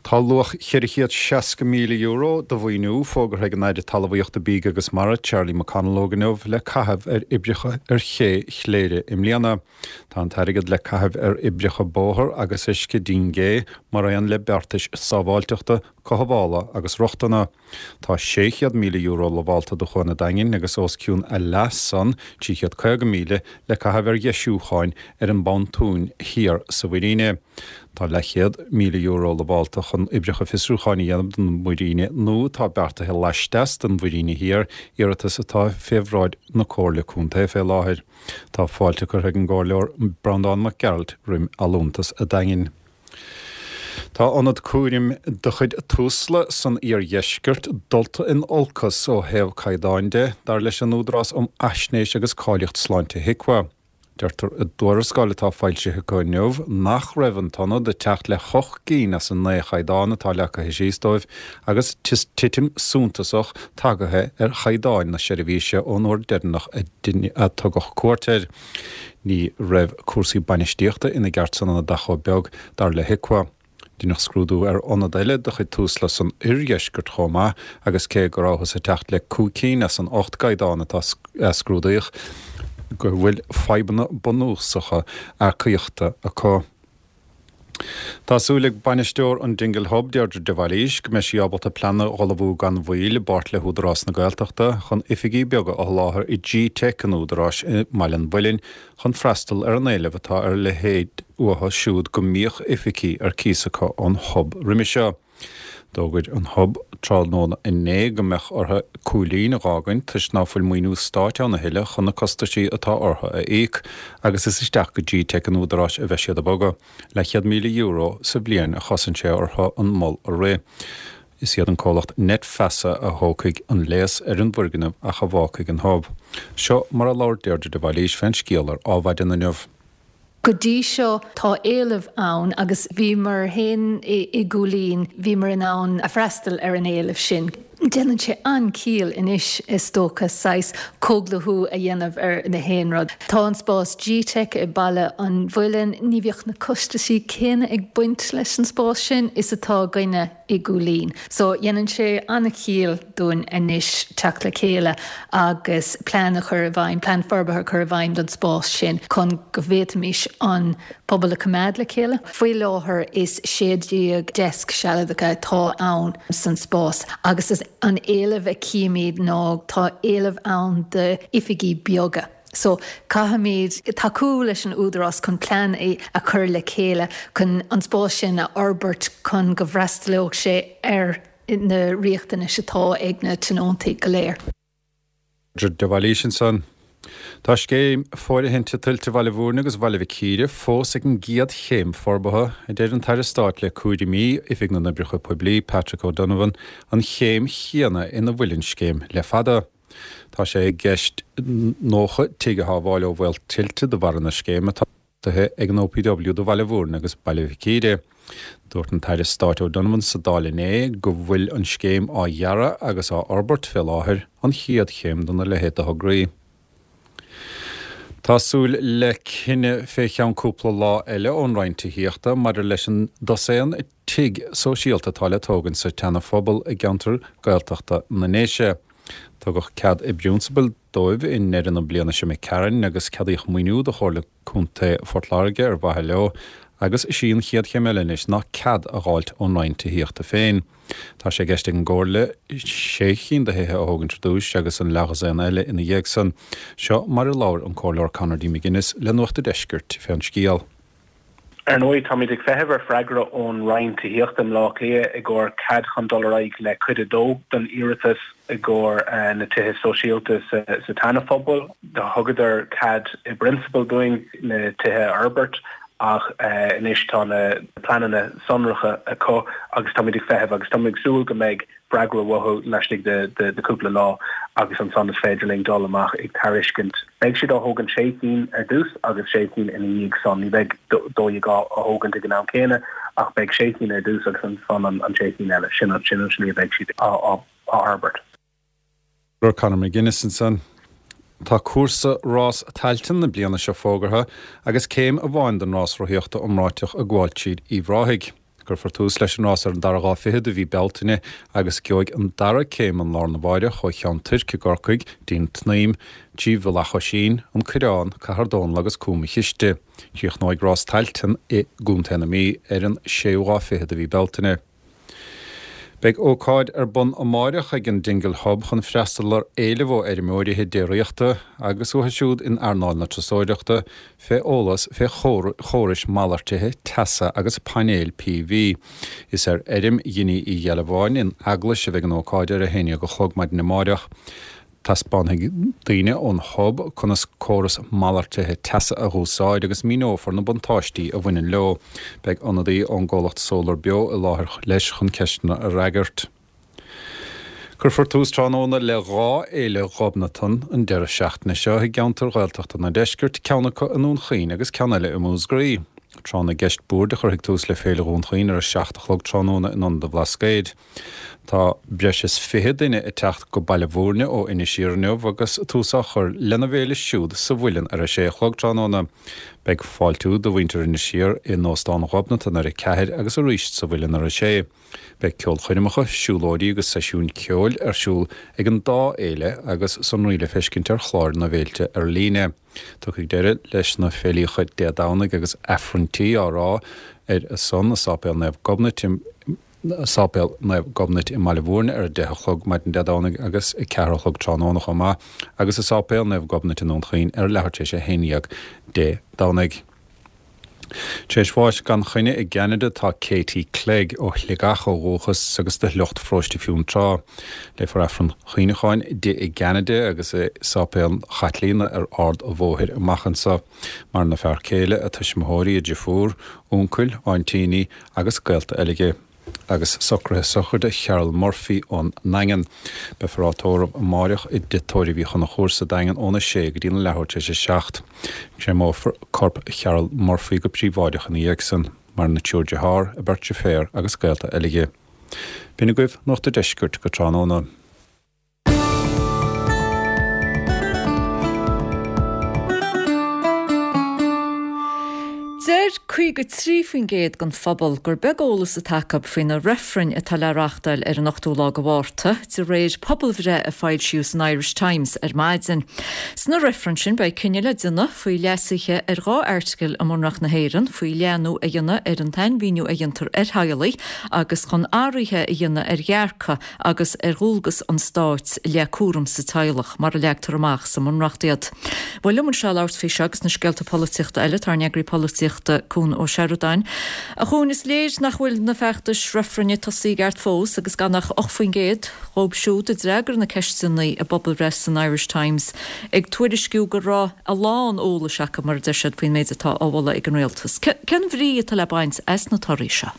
Tá luach €460,000 de mhaoiniú fógartha ag an Aire Talmhaíochta, Bídh agus Mara, Charlie McConalogue inniu le caitheamh ar oibreacha ar ché Chléire i mbliana. Tá an t-airgead le caitheamh ar oibreacha bóthair agus uisce dín gé, mar aon le beartais sábháilteachta, cothabhála agus rochtana. Tá €600,000 lamhálta do Chuan an Daingin agus os cionn a leath san, 350,000, le caitheamh ar dheisiúcháin ar an bpontún thiar sa mhuiríne. Tá leathchéad €1,000 lamhálta chun oibreacha fiosrúcháin a dhéanamh don mhuiríne nua atá beartaithe laisteas den mhuiríne thiar, iarratas atá fé bhráid na Comhairle Contae fé láthair. Tá fáilte curtha ag an gComhairleoir Breandán Mac Gearailt roim allúntas a' Daingin. Tá ionad cúraim de chuid Tusla san iardheisceart dulta in olcas ó thaobh caighdeáin de, dar leis an Údarás um Fhaisnéis agus Cáilíocht Sláinte HIQA. Deirtear i dtuarascáil atá foilsithe acu inniu nach raibh an t-ionad ag teacht le hocht gcinn as an naoi chaighdeán atá leagtha síos dóibh agus titim suntasach tagaithe ar chaighdeáin na seirbhíse ón uair deireanach a tugadh cuairt air. Ní raibh cúrsaí bainistíochta ina gceart san ionad ach chomh beag, dar le HIQA. Deineadh scrúdú ar ionad eile de chuid Tusla san oirdheisceart chomh maith agus cé go rabhthas ag teacht le cúig cinn as an ocht gcaighdeán atá a scrúdaíodh, go bhfuil fadhbanna bunúsacha earcaíochta acu. Tá súil ag bainisteoir an Dingle Hub, Deirdre de Bhailís, go mbeidh sí ábalta plean a dh'ullmhú gan mhoill i bpáirt le hÚdarás na Gaeltachta chun oifigí beaga a sholáthar i G-Teic an Údaráis i mBaile an Mhuilinn chun freastal ar an éileamh atá ar a leithéid uathu siúd go mbíodh oifigí ar cíos acu ón Hub roimhe seo. D'fhógair an Hub tráthnóna inné go mbeadh orthu Cúilín a dh'fhágaint toisc ná fuil maoiniú stáit ann a thuilleadh chun na costaisí atá orthu a íoc agus is isteach go G-Teic an Údaráis a bheidh siad ag bogadh. Leathchéad €1,000 sa bhliain a chosain sé orthu an mol a rith. Is iad an comhlacht Net Feasa a thógfaidh an léas ar an bhfoirgneamh ach a bhfágfaidh an Hub. Seo mar a labhair Deirdre de Bhailís fén scéal ar Adhmhaidin inniu. Go dtí seo tá éileamh ann agus bhíomar féin i gCúilín, bhíomar in ann a freastal ar an éileamh sin. Déanann sé an-chiall anois is dócha saghas comhdhlúthú a dhéanamh ar na haon rud. Tá an spás G-Teic i Baile an Mhuilinn, ní bheadh na costaisí céanna ag baint leis an spás sin is atá againne i gCúilín. So dhéanann sé an-chiall dúinn anois teacht le chéile agus plean a chur i bhfeidhm, plean forbartha a chur i bhfeidhm don spás sin chun go bhféadfaimis an pobal a choimeád le chéile. Faoi láthair is 16 deasc sealadacha atá ann san spás agus is an éileamh a chímid ná tá éileamh ann d'oifigí beaga. So caithfimid tacú leis an Údarás chun plean a chur le chéile chun an spás sin a fhorbairt chun go bhfreastalódh sé ar na riachtanais atá ag na tionóntaí go léir. De Bhailís ansan. Tá scéim fóirithinte tuilte Bhaile Bhúirne agus Bhaile Mhic Íre fós ag an gcéad chéim forbartha, a deir an tAire Stáit le cúraimí Oifig na nOibreacha Poiblí, Patrick O'Donovan, an chéim chéanna ina bhfuil an scéim le fada. Tá sé i gceist 90 tigh a shábháil ó bhaol tuilte de bharra na scéime atá. beartaithe ag an OPW do Bhaile Bhúirne agus Baile Mhic Íre. Dúirt an tAire Stáit O'Donovan sa Dáil inné go bhfuil an scéim á dhearadh agus á fhorbairt fé láthair, an chéad chéim dona leithéid de thograí. Tá súil le cinneadh fé cheann cúpla lá eile ón Roinn Tithíochta maidir leis an dosaen tigh sóisialta atá le tógaint sa tSeana-Phobal i gceantar Gaeltachta na nDéise. Tugadh cead i bprionsabal dóibh i ndeireadh na bliana seo imigh tharainn agus ceadaíodh maoiniú do Chomhairle Contae Phort Láirge ar mhaithe leo agus is í an chéad chéim eile anois ná cead a dh'fháilt ón Roinn Tithíochta féin. Tá sé i gceist ag an gComhairle sé chinn de thithe a thógaint ar dtúis agus an leathdhosaen eile ina dhiaidh san. Seo mar a labhair an Comhairleoir Conor D. McGuinness le Nuacht a' Deiscirt fén scéal. Ar ndóigh, táimid ag feitheamh ar freagra ón Roinn Tithíochta i mBleá Cliath i gcomhair cead chun dul ar aghaidh le cuid a dó den iarratas i gcomhair na tithe sóisialta sa tSeana-Phobal. Thugadar cead i bprionsabal dúinn na tithe a fhorbairt ach anois tá na pleananna sonracha acu agus táimid ag feitheamh agus táimid ag súil go mbeidh freagra uathu laistigh de chúpla lá agus ansan is féidir linn dul amach ag tairiscint. Beidh siad á thógaint sé cinn ar dtús agus sé cinn ina dhiaidh san. Ní bheidh 12 á thógaint ag an am céanna ach beidh sé cinn ar dtús agus ansan an sé cinn eile. Sin an slí a bheidh siad á fhorbairt. Conor McGuinness ansan. Tá cúrsa Rás Tailteann na bliana seo fógartha agus céim amháin den rás rothaíochta iomráiteach ag gabháil tríd Uíbh Ráthaigh. Cuirfear tús leis an rás ar an dara lá fichead de mhí Bealtaine agus gheobhaidh an dara céim an lá arna mháireach ó Cheann Toirc i gCorcaigh dtí'n tSnaidhm, trí Mhullach Oisín, An Coireán, Cathair Dónall agus Cúm a' Chiste. Críochnóidh Rás Tailteann i gContae na Mí ar an séú lá fichead de mhí Bealtaine. Beidh ócáid ar bun amáireach ag an Dingle Hub chun freastal ar éileamh ó fheirmeoirí déiríochta agus uathu siúd in earnáil na turasóireachta fé eolas fé chórais malartaithe teasa agus painéil PV. Is ar fheirm Dhinny Uí Ghealbháin in Eaglais a bheidh an ócáid ar a haon dhéag a chlog maidin amáireach. Taispeánfaidh daoine ón Hub conas córas malartaithe teasa a dh'úsáid agus míneofar na buntáistí a bhaineann leo. Beidh ionadaí ón gcomhlacht Solar Beo i láthair leis chun ceisteanna a fhreagairt. Cuirfear tús tráthnóna le dhá fhéile Ghobnatan an deireadh seachtaine seo i gceantair Ghaeltachta na Deiscirt, ceann acu i nDún Chaoin agus ceann eile i Múscraí. Tráth na gCeist Boird a chuirfidh tús le Féile Dhún Chaoin ar a 7 a chlog tráthnóna in Ionad an Bhlascaoid. Tá breis is 20 duine ag teacht go Baile Bhúirne ó Inis Oírr inniu agus tús á chur lena bhféile siúd sa Mhuileann ar a sé a chlog tráthnóna. Beidh fáiltiú do mhuintir Inis Oírr in Óstán Ghobnatan ar a ceathair agus arís sa Mhuileann ar a sé. Beidh ceolchoirmeacha, siúlóidí agus seisiúin ceoil ar siúl ag an dá fhéile agus sonraí le feiscint ar chláir na bhféilte ar líne. Tiocfaidh deireadh leis na féilíocha Dé Domhnaigh agus Aifrinntí á rá ar a son i Sáipéal Naomh Gobnait i Sáipéal Naomh Gobnait i mBaile Bhúirne ar 10 a chlog maidin Dé Domhnaigh agus 4 a chlog tráthnóna chomh maith agus i Sáipéal Naomh Gobnait i nDún Chaoin ar leathuair tar éis 11 Dé Domhnaigh. Tar éis bháis gan choinne i gCeanada tá Katie Clegg, ó Shligeach ó dhúchas agus de shliocht Pharóiste Fionntrá. Léifear Aifreann Cuimhneacháin di i gCeanada agus i Sáipéal Chaitlíona ar Ard a' Bhóthair amach anso. Maireann a fear céile, a tuismitheoirí, a driofúr, uncail, áintíní agus gaolta eile di. Agus socruithe sochraide Cheryl Murphy ón nDaingean. Beifear á tórramh amáireach i dTigh Tórraimh Uí Chonchúir sa Daingean óna sé go dtí an leathuair tar éis a 7. Créamófar corp Cheryl Murphy go príobháideach ina dhiaidh san. Maireann a triúr dearthár, a beirt deirféar agus gaolta eile di. B'in agaibh Nuacht a' Deiscirt go tráthnóna. Deir 53% den phobal gur beag eolas atá acu faoi na reifrinn atá le reáchtáil ar an ochtú lá de Mhárta, de réir pobalbhreith a foilsíodh san Irish Times ar maidin. Sna reifrinn sin beidh cinneadh le déanamh faoi leasuithe ar 2 airteagal i mBunreacht na hÉireann, faoi leathnú a dhéanamh ar an tsainmhíniú a dhéantar ar theaghlaigh agus chun athruithe a dhéanamh ar dhearcadh agus ar dhualgas an stáit i leith cúram sa teaghlach, mar a leagtar amach sa mBunreacht iad. Bhuel, liom anseo le labhairt faoi seo agus na scéalta polaitíochta eile, tá ár n-eagraí polaitíochta, Cuan Ó Seireadáin. A Chuain, is léir nach bhfuil na feachtais reifrinne tosaithe i gceart fós agus gan ach 8% dhóibh siúd a d'fhreagair na ceisteanna i bpobalbhreith san Irish Times ag tuairisciú go raibh a lán eolais acu, mar a deir siad, faoin méid atá á mholadh ag an rialtas. Cén bhrí atá le baint as na torthaí seo?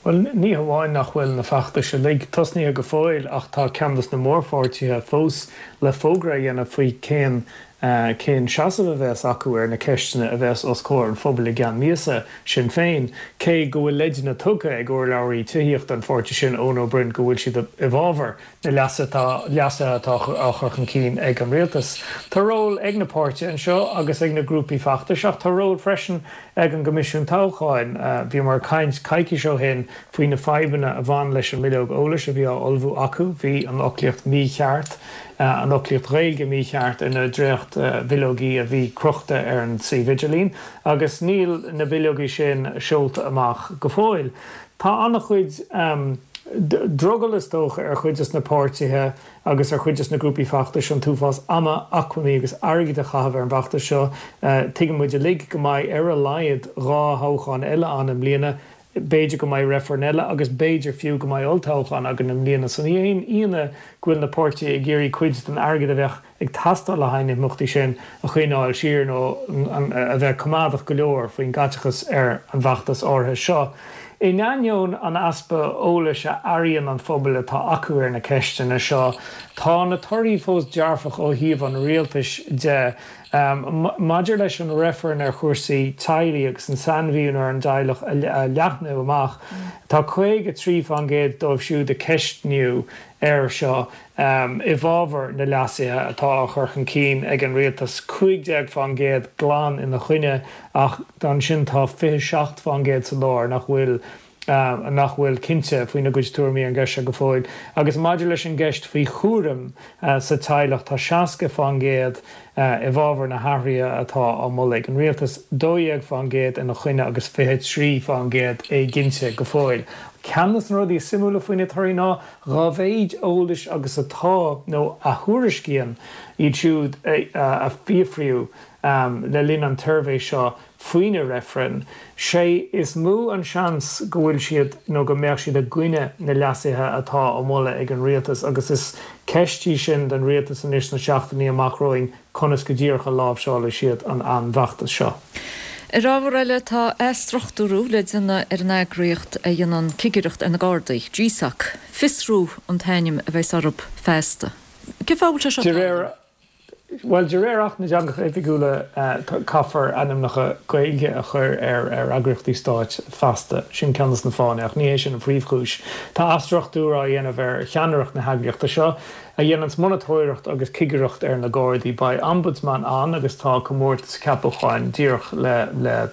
Bhuel, ní hamháin nach bhfuil na feachtais uilig tosnaithe go fóill ach tá ceann dos na mórpháirtithe fós le fógra a dhéanamh faoi cén cén seasamh a bheas acu ar na ceisteanna a bheas os comhair an phobail i gceann míosa, Sinn Féin. Cé go bhfuil leideanna tugtha ag urlabhraí tithíochta an pháirtí sin, Eoin Ó Broin, go bhfuil siad i bhfabhar na leasuithe atá á chur chun cinn ag an rialtas. Tá ról ag na páirtithe anseo agus ag na grúpaí feachtais ach tá ról freisin ag an gCoimisiún Toghcháin. Bhíomar ag caint coicís ó shin faoi na fadhbanna a bhain leis an mbileog eolais a bhí á ullmhú acu. Bhí an fhoclaíocht mícheart, an fhoclaíocht Ghaeilge mícheart ar na dréacht-bhileogaí a bhí crochta ar an suíomh idirlín agus níl na bileogaí sin seolta amach go fóill. Tá an-chuid drogall is dócha ar chuid des na páirtithe agus ar chuid des na grúpaí feachtais an t-uafás ama, acmhainní agus airgid a chaitheamh ar an bhfeachtas seo. Tuigeann muid uilig go mbeidh ar a laghad 2 thoghchán eile ann i mbliana, b'fhéidir go mbeidh reifreann eile agus b'fhéidir fiú go mbeidh olltoghchán againn i mbliana. So ní haon ionadh go bhfuil na páirtithe ag iarraidh cuid den airgead a bheadh ag teastáil le haghaidh na himeachtaí sin a choinneáil siar nó a bheith coimeádach go leor faoin gcaiteachas ar an bhfeachtas áirithe seo. In ainneoin an easpa eolais a airíonn an phobail atá acu ar na ceisteanna seo, tá na torthaí fós dearfach ó thaobh an rialtais de. Maidir leis an reifreann ar chúrsaí teaghlaigh agus an sainmhíniú ar an dteaghlach a leathnú amach, tá 53% dóibh siúd a ceistníodh air seo i bhfabhar na leasuithe atá á chur chun cinn ag an rialtas, 15% glan ina choinne ach ansin tá 27% sa lár nach bhfuil nach bhfuil cinnte faoina gcuid tuairimí ar an gceist seo go fóill. Agus maidir leis an gceist faoi chúram sa teaghlach, tá 60% i bhfabhar na hathruithe atá á moladh ag an rialtas, 12% ina choinne agus 23% éiginnte go fóill. Ceann de na rudaí is suimiúla faoi na torthaí ná Dá mhéid eolais agus atá, nó a thuairiscíonn iad siúd a fiafraíodh le linn an tsuirbhé seo faoi na reifrinn, sé is mó an seans go bhfuil siad nó go mbeadh siad i gcoinne na leasuithe atá á moladh ag an rialtas agus is ceist í sin don rialtas anois sna seachtainí amach romhainn conas go díreach a láimhseálfaidh siad an an bhfeachtas seo. Ar ábhar eile, tá athstruchtúrú le déanamh ar an eagraíocht a dhéanann cigireacht ar na Gardaí, GSOC. Fiosrú an t-ainm a bheas orthu feasta. Cén fáth a bhfuil sé seo De réir, bhuel, de réir Acht na dTeangacha Oifigiúla caithfear ainmneacha Gaeilge a chur ar ar eagraíochtaí stáit feasta. Sin ceann de na fáthanna, ach ní hé sin an phríomhchúis. Tá athstruchtúrú á dhéanamh ar cheannaireacht na heagraíochta seo. a dhéananns monatóireacht agus cigireacht ar na Gardaí. Beidh Ombudsman ann agus tá comórtas ceapacháin díreach le le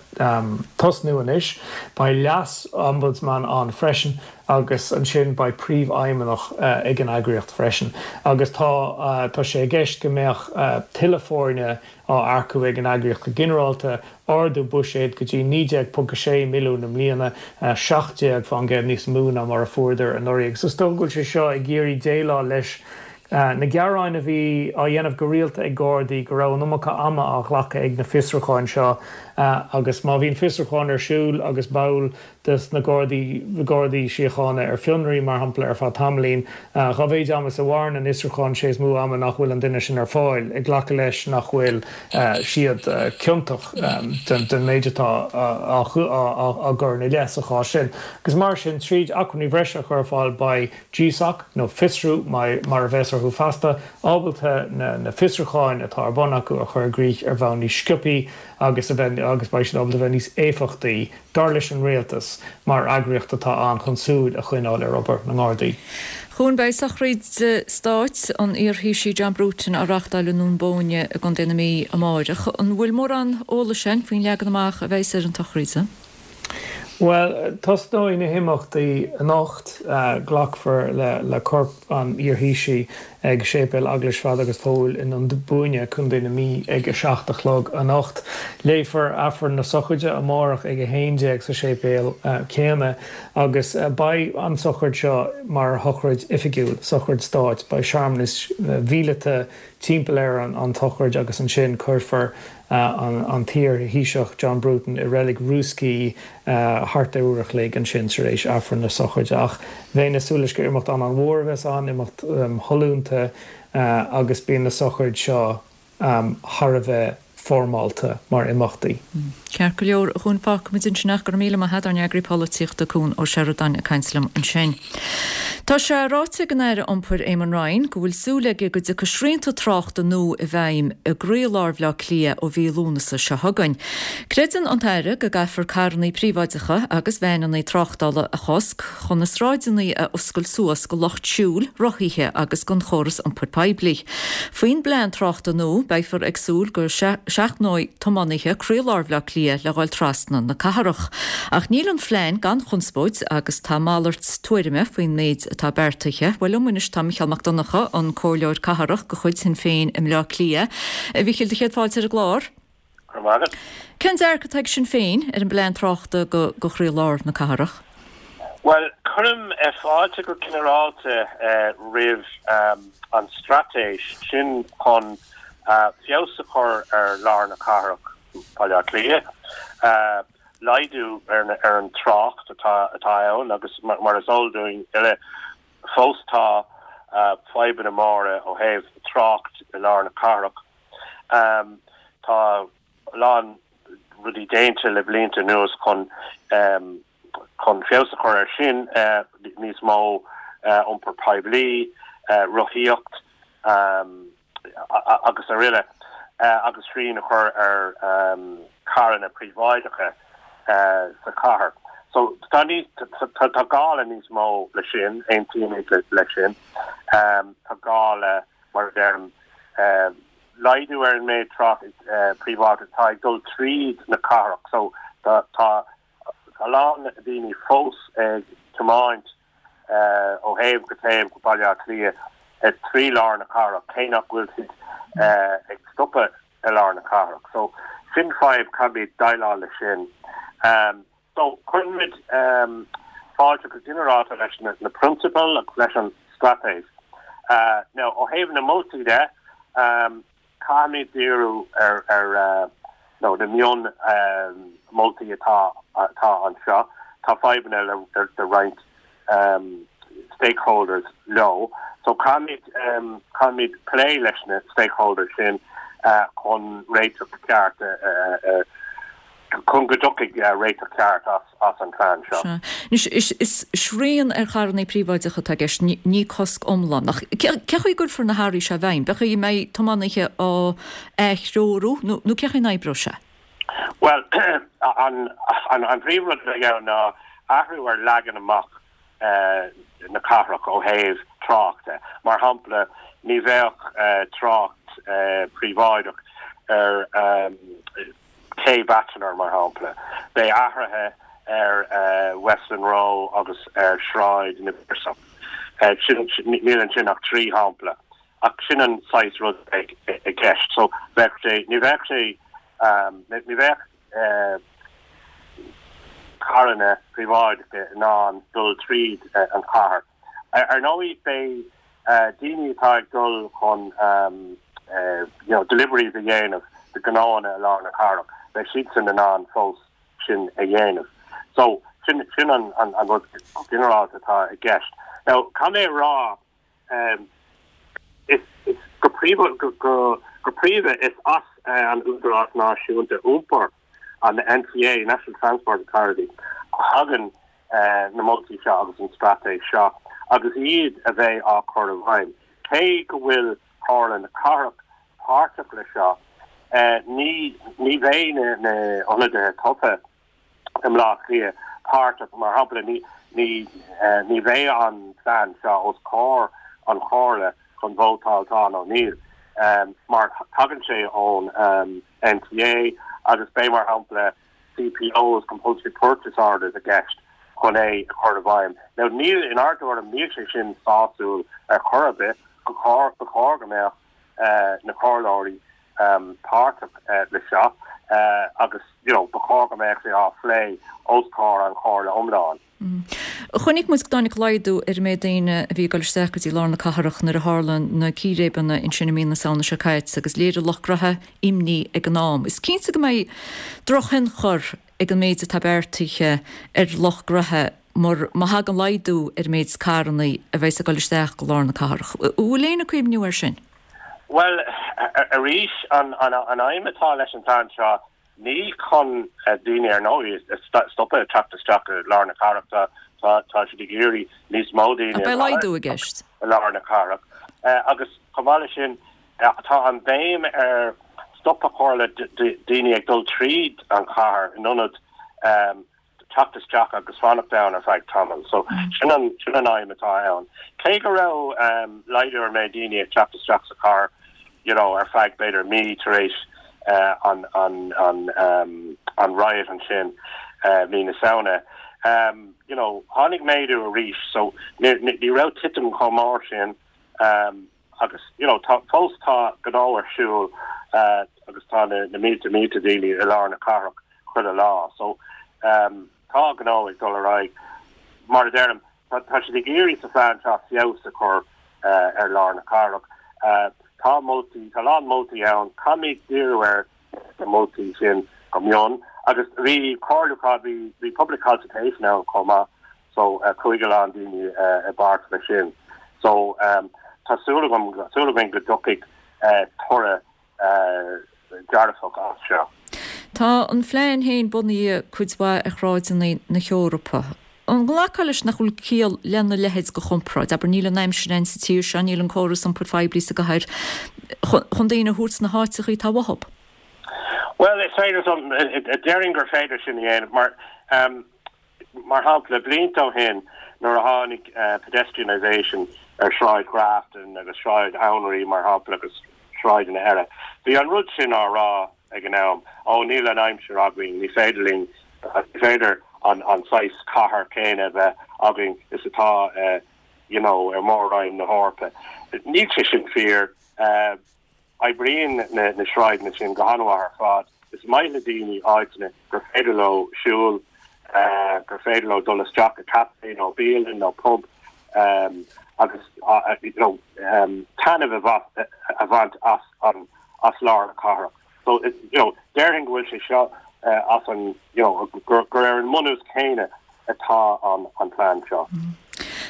tosnú anois. Beidh leas-Ombudsman ann freisin agus ansin beidh príomhfheidhmeannach ag an eagraíocht freisin. Agus tá tá sé i gceist go mbeadh tuilleadh foirne á earcú ag an eagraíocht go ginearálta, ardú buiséid go dtí 19.6 milliún i mbliana, 17% níos mó ná mar a fuaireadar anuraidh. Agus is dócha go bhfuil sé seo ag iarraidh déileáil leis na gearáin a bhí á dhéanamh go rialta ag Gardaí go raibh an iomarca ama á ghlacadh ag na fiosrúcháin seo agus má bhíonn fiosrúchán ar siúl agus ball de na Gardaí, Gardaí Síochána ar fionraí, mar shampla, ar feadh tamaillín. Dá mhéid ama is a mhaireann an fhiosrúchán, sé is mó ama nach bhfuil an duine sin ar fáil, ag glacadh leis nach bhfuil siad ciontach den méid atá á gcur ina leith sa chás sin. Agus mar sin, tríd acmhainní bhreise a chur ar fáil, beidh GSOC, nó Fiosrú mar a bheas. orthu feasta, ábalta na fiosrúcháin atá ar bun acu a chur i gcrích ar bhonn níos sciobthaí agus a bheith agus beidh siad ábalta a bheith níos éifeachtaí, dar leis an rialtas, mar eagraíocht atá ann chun súil a choinneáil ar obair na nGardaí. A Chuain, beidh sochraid stáit an iar-Thaoisigh John Bruton á reáchtáil i nDún Bóinne i gContae na Mí amáireach. An bhfuil mórán eolais againn faoin leagan amach a bheas ar an tsochraid san? Bhuel, tosnóidh na himeachtaí anocht. Glacfar le corp an iar-Thaoisigh ag Séipéal Eaglais Pheadair agus Phóil i nDún Búinne, Contae na Mí ag 7 a chlog anocht. Léifear Aifreann na sochraide amárach ag 11 sa séipéal céanna agus beidh an tsochraid seo mar shochraid oifigiúil, sochraid stáit. Beidh searmanais mhíleata timpeall ar an tsochraid agus ansin cuirfear an t-iar-Thaoiseach John Bruton i reilig Rúscaí thart ar uair a chloig ansin tar éis Aifreann na sochraide. Ach bheinn ag súil leis gur imeacht an-an-mhór a bheas ann, imeacht shollúnta agus bíonn na sochraid seo thar a bheith foirmeálta mar imeachtaí. Ceart go leor, a Chuain, fágfaimid ansin é. Go raibh míle maith agat, ár n-eagraí polaitíochta, Cuan Ó Seireadáin ag caint liom ansin. Tá sé ráite ag an Aire Iompair Éamon Ryan go bhfuil súil aige go dtiocfaidh srianta tráchta nua i bhfeidhm i gcroílár Bhaile Átha Cliath ó mhí Lúnasa seo chugainn. Creideann an tAire go gcaithfear carrannaí príobháideacha agus veaineannaí tráchtála a chosc chun na sráideannaí a oscailt suas go lucht siúil, rothaithe agus don chóras iompair poiblí. Faoin bplean tráchta nua, beifear ag súil go seachnóidh tiománaithe croílár Bhaile Átha Cliath le dhul trasna na cathrach. Ach níl an phlean gan chonspóid agus tá malairt tuairime faoin méid atá beartaithe. Bhuel, liom anois tá Micheál Mac Donncha, an Comhairleoir Cathrach de chuid Shinn Féin i mBleá Cliath. A Mhichíl, do chéad fáilte ar an gclár. Go raibh maith agat. Cén dearcadh atá ag Sinn Féin ar an bplean tráchta go chroílár na cathrach? Bhuel, cuirim fáilte go ginearálta roimh an straitéis sin chun feabhas a chur ar lár na cathrach, Baile Átha Cliath, laghdú ar an trácht atá ann agus mar is eol dúinn uile, fós tá fadhbanna móra ó thaobh trácht i lár na cathrach. Tá a lán rudaí déanta le blianta anuas chun chun feabhas a chur air sin, níos mó iompar poiblí, rothaíocht agus araile agus srian a chur ar charranna príobháideacha sa chathair. So tá níos tá gá le níos mó le sin, aontaímid leis sin. Tá gá le mar a deirim, laghdú ar an méid trácht príobháideach atá ag dul tríd na cathrach. So tá a lán daoine fós ag tiomáint ó thaobh go taobh go Baile Átha Cliath trí lár na cathrach, cé nach bhfuil siad ag stopadh i lár na cathrach. So sin fadhb, caithfimid déileáil leis sin. So, cuirimid fáilte go ginearálta leis na prionsabail agus leis an straitéis. Now, ó thaobh na moltaí de, caithfimid díriú ar ar nó na mion moltaí atá atá anseo. Tá fadhbanna le le roinnt stakeholders leo. So, caithfimid caithfimid plé leis na stakeholders sin chun réiteach ceart a chun go dtiocfaidh réiteach ceart as an phlean seo. Sea. Anois, is srian ar charrannaí príobháideacha atá i gceist, ní cosc iomlán. Ach cé chaoi a gcuirfear na hathruithe seo i bhfeidhm? Cén chaoi a mbeidh tiománaithe á atreorú nó cé chaoi a n-oibreoidh sé? Bhuel, an príomhrud a bheidh ann ná athrú ar leagan amach na cathrach ó thaobh tráchta. Mar shampla, ní bheadh trácht príobháideach ar Cé Bachelor, mar shampla. Beidh athruithe ar Westland Row agus ar Shráid na bPiarsach. Sin, níl ansin ach 3 shampla, ach sin an saghas rud a bheidh i gceist. So, bheadh sé, ní bheadh sé, ní bheadh carranna príobháideacha in ann dul tríd an chathair. Ar ndóigh, beidh daoine atá ag dul chun you know deliveries a dhéanamh do ghnóanna i lár na cathrach, beidh siadsan in ann fós sin a dhéanamh. So, sin sin an an an rud ginearálta atá i gceist. Now, caithfidh mé a rá, is is go príomha go go go príomha is as an Údarás Náisiúnta Iompair, an NTA, National Transport Authority, a thagann na moltaí seo agus an straitéis seo agus iad a bheidh á cur i bhfeidhm. Cé go bhfuil Comhairle na Cathrach páirteach le seo, ní ní bheidh na na ionadaithe tofa i mBleá Cliath páirteach, mar shampla ní ní ní bheidh an plean seo os comhair an Chomhairle chun vótáil tá nó níl, mar tagann sé ón NTA agus beidh mar shampla CPOs, Compulsory Purchase Orders, i gceist chun é a chur i bhfeidhm. Now níl, inár dtuairim, níl sé sin sásúil ar chor ar bith. Ba chóir, ba chóir go mbeadh na comhairleoirí páirteach le seo agus you know ba chóir go mbeadh sé á phlé os comhair an chomhairle iomlán. Chonaic muid go dtáinig laghdú ar an méid daoine a bhí ag dul isteach go dtí lár na cathrach nuair a tharla na círéibeanna ansin i mí na Samhna seo caite agus léirigh lucht gnoithe imní ag an am. Is cinnte go mbeidh drochthionchar ag an méid atá beartaithe ar lucht gnoithe mar má thagann laghdú ar an méid carranna a bheas ag dul isteach go lár na cathrach. An bhfuil éinne ag cuimhniú air sin? Bhuel, arís, an aidhm atá leis an bplean seo Ní chun daoine, ar ndóigh, a stopadh ag teacht isteach i lár na cathrach, tá siad ag iarraidh níos mó daoine a laghdú i gceist. i lár na cathrach. Agus chomh maith leis sin, tá an bhéim ar stop a chur le daoine ag dul tríd an chathair in ionad teacht isteach agus fanacht ann ar feadh tamaill. So sin an, sin an aidhm atá ann. Cé go raibh laghdú ar méid daoine ag teacht isteach sa chathair you know ar feadh b'fhéidir mí tar éis an, an, an, an riot ansin mí na Samhna, you know tháinig méadú arís so ní, ní raibh titim chomh mór sin agus you know tá, fós tá gnó ar siúl agus tá na, na mílte mílte daoine i lár na cathrach. chuile lá. So tá gnó ag dul ar aghaidh. Mar a deirim, tá siad ag iarraidh sa phlean seo feabhas a chur ar lár na cathrach. Tá moltaí, tá a lán moltaí ann. Caithfimid díriú ar na moltaí sin go mion. Agus bhí comhairliúchán, bhí bhí public consultation ann chomh maith so chuaigh a lán daoine i bpáirt leis sin. So tá súil agam, súil againn go dtiocfaidh toradh dearfach as seo. Tá an phlean féin bunaithe cuid mhaith ar shráideanna na hEorpa. An nglacfá leis nach bhfuil ciall lena leithéid de chomparáid? Abair, níl an aimsir ann sa tír seo, níl an córas iompair phoiblí sa gcathair chun daoine a thabhairt sna háiteachaí atá uathub. Bhuel, is féidir, déarfainn gur féidir sin a dhéanamh mar, Mar shampla, blianta ó shin nuair a tháinig pedestrianisation ar Shráid Ghrafton agus Sráid Anraí, mar shampla, agus sráideanna eile, bhí an rud sin á rá ag an am, ó níl an aimsir againn, ní féidir linn, ní féidir an saghas cathair céanna a bheith againn is atá you know ar Mhór-Roinn na hEorpa. Níl sé sin fíor. Oibríonn na sráideanna sin go han-mhaith ar fad. Is maith le daoine áiteanna gur féidir leo siúl, gur féidir leo dul isteach i caife nó bialann nó pub agus you know taitneamh a bhaint as an as lár na cathrach. So you know déarfainn go bhfuil sé seo as an you know gur ar an mbunús céanna atá an plean seo.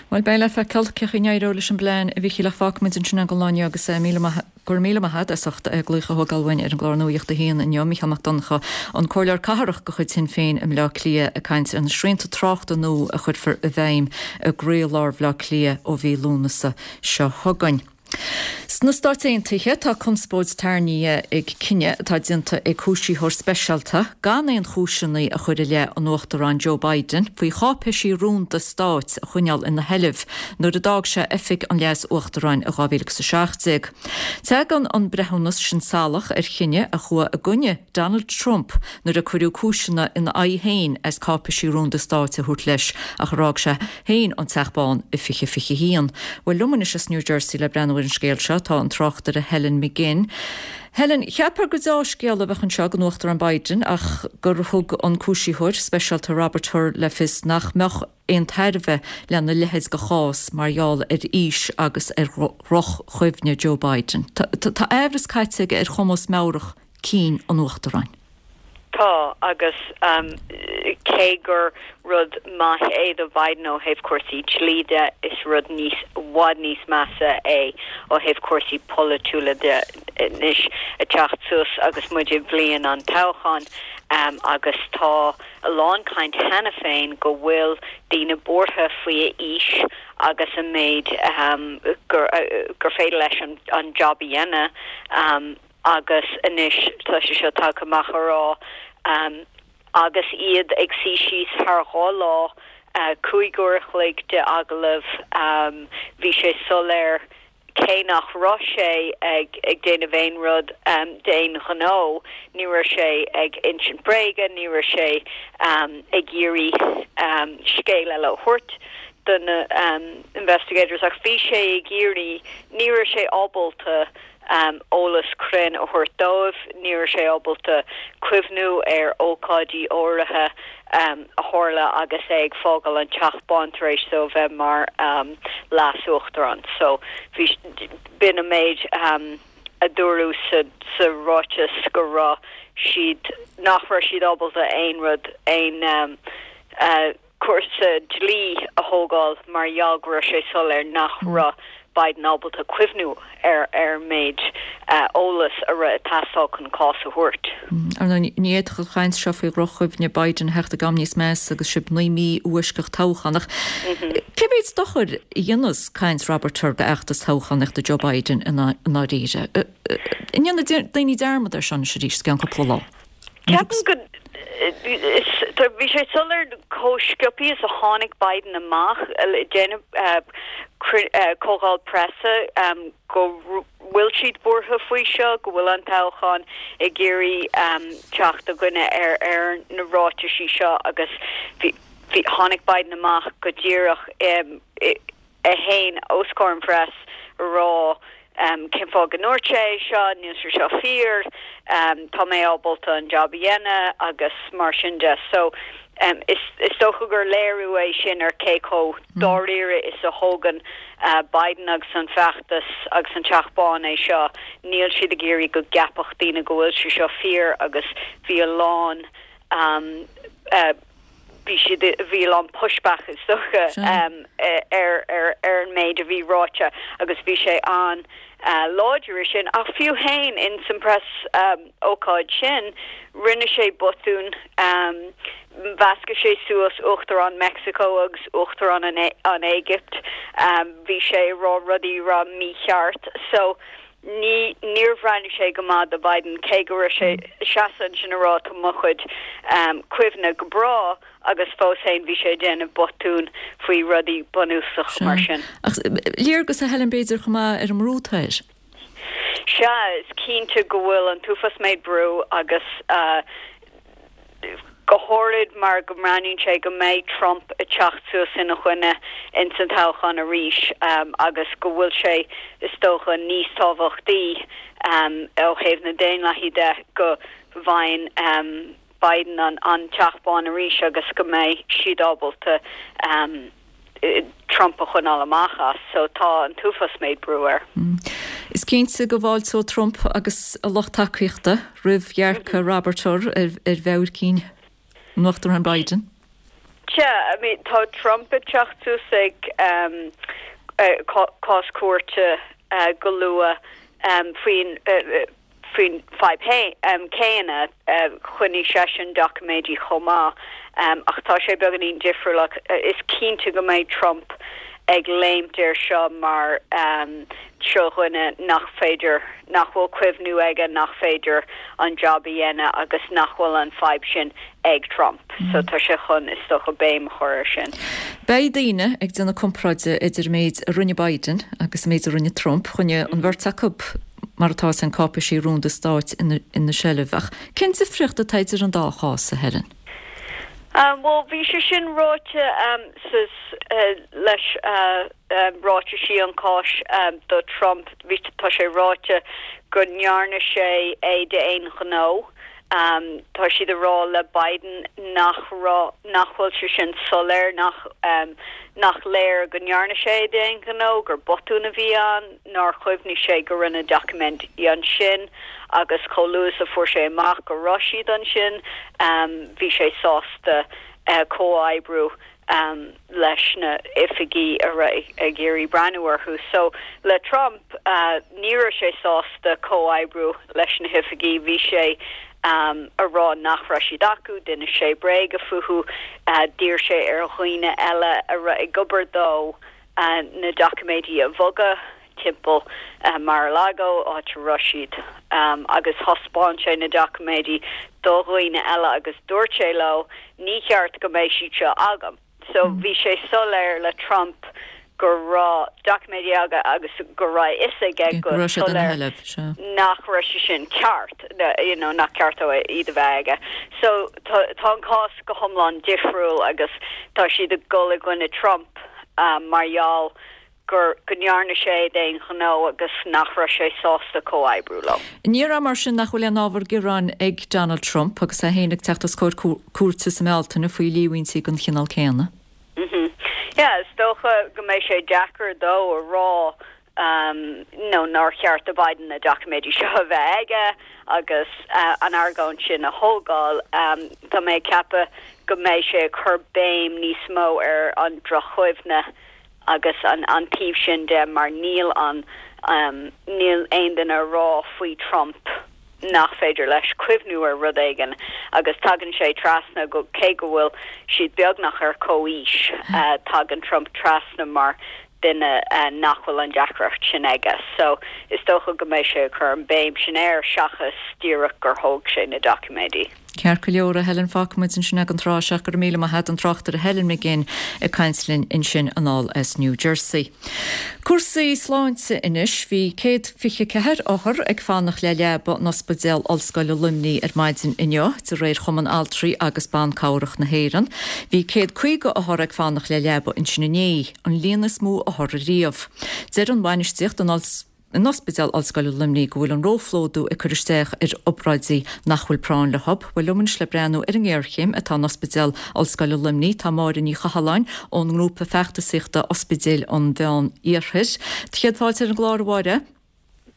Bhuel, beidh le feiceáil cén chaoi a n-éireoidh leis an bplean, a Mhíchíl, ach fágfaimid ansin é don lá inniu agus míle maith, go raibh míle maith agat as ucht glaoch a thógáil uainn ar an gclár Nuacht a hAon inniu. Mícheál Mac Donncha, an Comhairleoir Cathrach de chuid Shinn Féin i mBleá Cliath ag caint ar na srianta tráchta nua a chuirfear i bhfeidhm i gcroílár Bhleá Cliath ó mhí Lúnasa seo chugainn. Sna Stáit Aontaithe, tá conspóid tarraingthe ag cinneadh atá déanta ag cúisítheoir speisialta gan aon chúiseanna a chur i leith an Uachtaráin Joe Biden faoi cháipéisí rúnda stáit a choinneáil ina sheilbh nuair a d'fhág sé oifig an Leas-Uachtaráin i 2017. Tagann an breithiúnas sin salach ar chinneadh a chuaigh i gcoinne Donald Trump nuair a cuireadh cúiseanna ina aghaidh féin as cáipéisí rúnda stáit a thabhairt leis ach ar fhág sé féin an Teach Bán i 2021. Bhuel, liom anois as New Jersey le breathnú ar an scéal seo tá an tráchtaire Helen McGinn. Helen, cheapfá gur deá-scéala a bheadh anseo don Uachtarán Biden ach gur thug an cúisítheoir speisialta Robert Hur le fios nach mbeadh aon tairbhe lena leithéid de chás mar gheall ar aois agus ar dhroch-chuimhne Joe Biden. Tá aimhreas caite aige ar chumas meabhrach cinn an Uachtaráin. Tá, agus. Cé gur rud maith é do Biden ó thaobh cúrsaí dlí de, is rud níos, i bhfad níos measa é ó thaobh cúrsaí polaitiúla de anois ag teacht suas agus muid i bhliain an toghcháin agus tá a lán caint cheana féin go bhfuil daoine buartha faoi a aois agus an méid gur gur féidir leis an job a dhéanamh agus anois tá sé seo tagtha amach a rá agus iad ag suí síos thar 2 lá, 5 uair a chloig de agallamh, bhí sé soiléir cé nach raibh sé ag déanamh aon rud d'aon ghnó, ní raibh sé ag insint bréige, ní raibh sé ag iarraidh scéal eile a thabhairt do na investigators ach bhí sé ag iarraidh, ní raibh sé ábalta eolas cruinn a thabhairt dóibh, ní raibh sé ábalta cuimhniú ar ócáidí áirithe a tharla agus é ag fágáil an Teach Bán tar éis dó a bheith mar leas-uachtarán. So bhí, b'in an méid a dúradh sa, sa ráiteas go raibh siad, nach raibh siad ábalta aon rud, aon cúrsa dlí a thógáil mar gheall go raibh sé soiléir nach raibh Biden ábalta cuimhniú ar ar an méid eolas a raibh ag teastáil chun cás a thabhairt. Ar ndóigh, ní fhéadfadh an chaint seo faoi dhroch-chuimhne Biden a theacht ag am níos measa agus sibh 9 mí ó fhoisceacht toghchán. Ach cé mhéad dochair a dhéanfas caint Robert Hur d'fheachtas toghchánaíochta Joe Biden i ndáiríre? An ndéanfaidh daoine dearmad air seo anois arís i gceann cúpla lá? Ceapaim go bhí sé soiléir chomh sciobtha is a tháinig Biden amach ag déanamh comhdháil preasa go bhfuil siad buartha faoi seo, go bhfuil an toghchán ag iarraidh teacht i gcoinne ar ar na ráitisí seo agus bhí tháinig Biden amach go díreach i é féin os comhair an phress a rá cén fáth go ndúirt sé é seo, níl sé seo fíor, tá mé ábalta an jab a dhéanamh agus mar sin de. So is is dócha gur léiriú é sin ar cé chomh dáiríre is a thógann Biden agus an feachtas agus an Teach Bán é seo. Níl siad ag iarraidh go gceapfadh daoine go bhfuil sé seo fíor agus bhí a lán bhí siad, bhí a lán pushback is dócha ar ar ar an méid a bhí ráite agus bhí sé an-láidir i sin. Ach fiú féin in san press ócáid sin, rinne sé botún, mheascaigh sé suas Uachtarán Meicsiceo agus Uachtarán an Éigipt, bhí sé ag rá rudaí a raibh mícheart. So Ní, níor bhreathnaigh sé go maith do Biden, cé go raibh sé seasamh ansin a rá tá mo chuid cuimhne go breá agus fós féin bhí sé ag déanamh botún faoi rudaí bunúsach mar sin. Ach léargas a Helen b'fhéidir chomh maith ar an mbrú atá air. Sea, is cinnte go bhfuil an t-uafás méid brú agus go háirid mar go mbreathnaíonn sé go mbeidh Trump ag teacht suas ina choinne ins an toghchán arís agus go bhfuil sé, is dócha, níos tábhachtaí ó thaobh na daonlathaí de go bhfaigheann Biden an Teach Bán arís agus go mbeidh siad ábalta Trump a choinneáil amach as. So tá an t-uafás méid brú air. Is cinnte go bhfáilteoidh Trump agus a lucht tacaíochta roimh dhearcadh Robert Hur ar mheabhair cinn an Uachtaráin Biden. Sea, I mean tá Trump ag teacht suas ag cás cúirte go luath faoin Faoin fadhb chéanna, choinnigh seisean doiciméidí chomh maith, ach tá sé beagáinín difriúil. Ach is cinnte go mbeidh Trump ag léimt air seo mar seo dhuine nach féidir, nach bhfuil cuimhniú aige, nach féidir an jab a dhéanamh agus nach bhfuil an fadhb sin ag Trump. So tá sé chun, is dócha, béim a chur air sin. Beidh daoine ag déanamh comparáide idir an méid a rinne Biden agus an méid a rinne Trump. Choinnigh an bheirt acu mar atá san cáipéisí rúnda stáit ina seilbh. Ach cén difríocht atá idir an dá chás, a Helen? Bhuel, bhí sé sin ráite sa leis ráitisí an cháis do Trump. Bhí tá sé ráite go ndearna sé é d'aon ghnó. Tá siad ag rá le Biden nach raibh, nach bhfuil sé sin soiléir, nach nach léir go ndearna sé é d'aon ghnó, gur botún a bhí ann. nár chuimhnigh sé go raibh na doiciméidí ansin agus chomh luath is a fuair sé amach go raibh siad ansin bhí sé sásta. Comhoibriú leis na oifigí a raibh ag iarraidh breathnú orthu. So le Trump, ní raibh sé sásta comhoibriú leis na hoifigí, bhí sé a rá nach raibh siad acu, d'inis sé bréaga fúthu, d'iarr sé ar dhaoine eile a raibh ag obair dó na doiciméidí a bhogadh timpeall Mar-a-Lago, áit a raibh siad, agus thaispeáin sé na doiciméidí do dhaoine eile agus dúirt sé leo, ní cheart go mbeidh siad seo agam. So bhí sé soiléir le Trump go raibh doiciméidí aige agus go raibh a fhios aige go soiléir nach raibh sé sin ceart, you know, nach ceart dó iad a bheith aige. So tá an cás go hiomlán difriúil agus tá siad ag dul i gcoinne Trump mar gheall gur go ndearna sé é d'aon ghnó agus nach raibh sé sásta comhoibriú leo. An ndéarfá mar sin nach bhfuil aon ábhar gearáin ag Donald Trump agus é féin ag teacht os comhair cúirte sa mBealtaine faoi líomhaintí den chineál céanna? Yeah, is dócha go mbeidh sé deacair dó a rá nó nár cheart do Biden na doiciméidí seo a bheith aige agus an argóint sin a thógáil. Tá mé ag ceapadh go mbeidh sé ag cur béim níos mó ar an droch-chuimhne agus an taobh sin de mar níl an níl aon duine a rá faoi Trump nach féidir leis cuimhniú ar rud éigin agus tagann sé trasna go cé go bhfuil siad beagnach ar comhaois tagann Trump trasna mar duine nach bhfuil an deacracht sin aige. So is dócha go mbeidh sé ag cur an béim sin air seachas díreach gur thóg sé na doiciméidí. Ceart go leor, a Helen, fágfaidh muid ansin é don tráth seo. Go raibh míle maith agat, an tráchtaire Helen McGinn ag caint linn ansin anall as New Jersey. Cúrsaí sláinte anois. Bhí 124 othar ag fanacht le leaba in Ospidéal Ollscoile Luimnigh ar maidin inniu, de réir Chumann Altraí agus Ban Cabhrach na hÉireann. Bhí 150 othar ag fanacht le leaba ansin inné, an líon is mó othar riamh. Deir an bhainistíocht in Ospidéal Ollscoile Luimnigh go bhfuil an róphlódú ag cur isteach ar obráidí nach bhfuil práinn leo. Bhuel liom anois le breathnú ar an ngéarchéim atá in Ospidéal Ollscoile Luimnigh tá Máire Ní Chathalláin ón ngrúpa feachtasaíochta Ospidéil an Mheán Iarthair. Céad fáilte ar an gclár, a Mháire.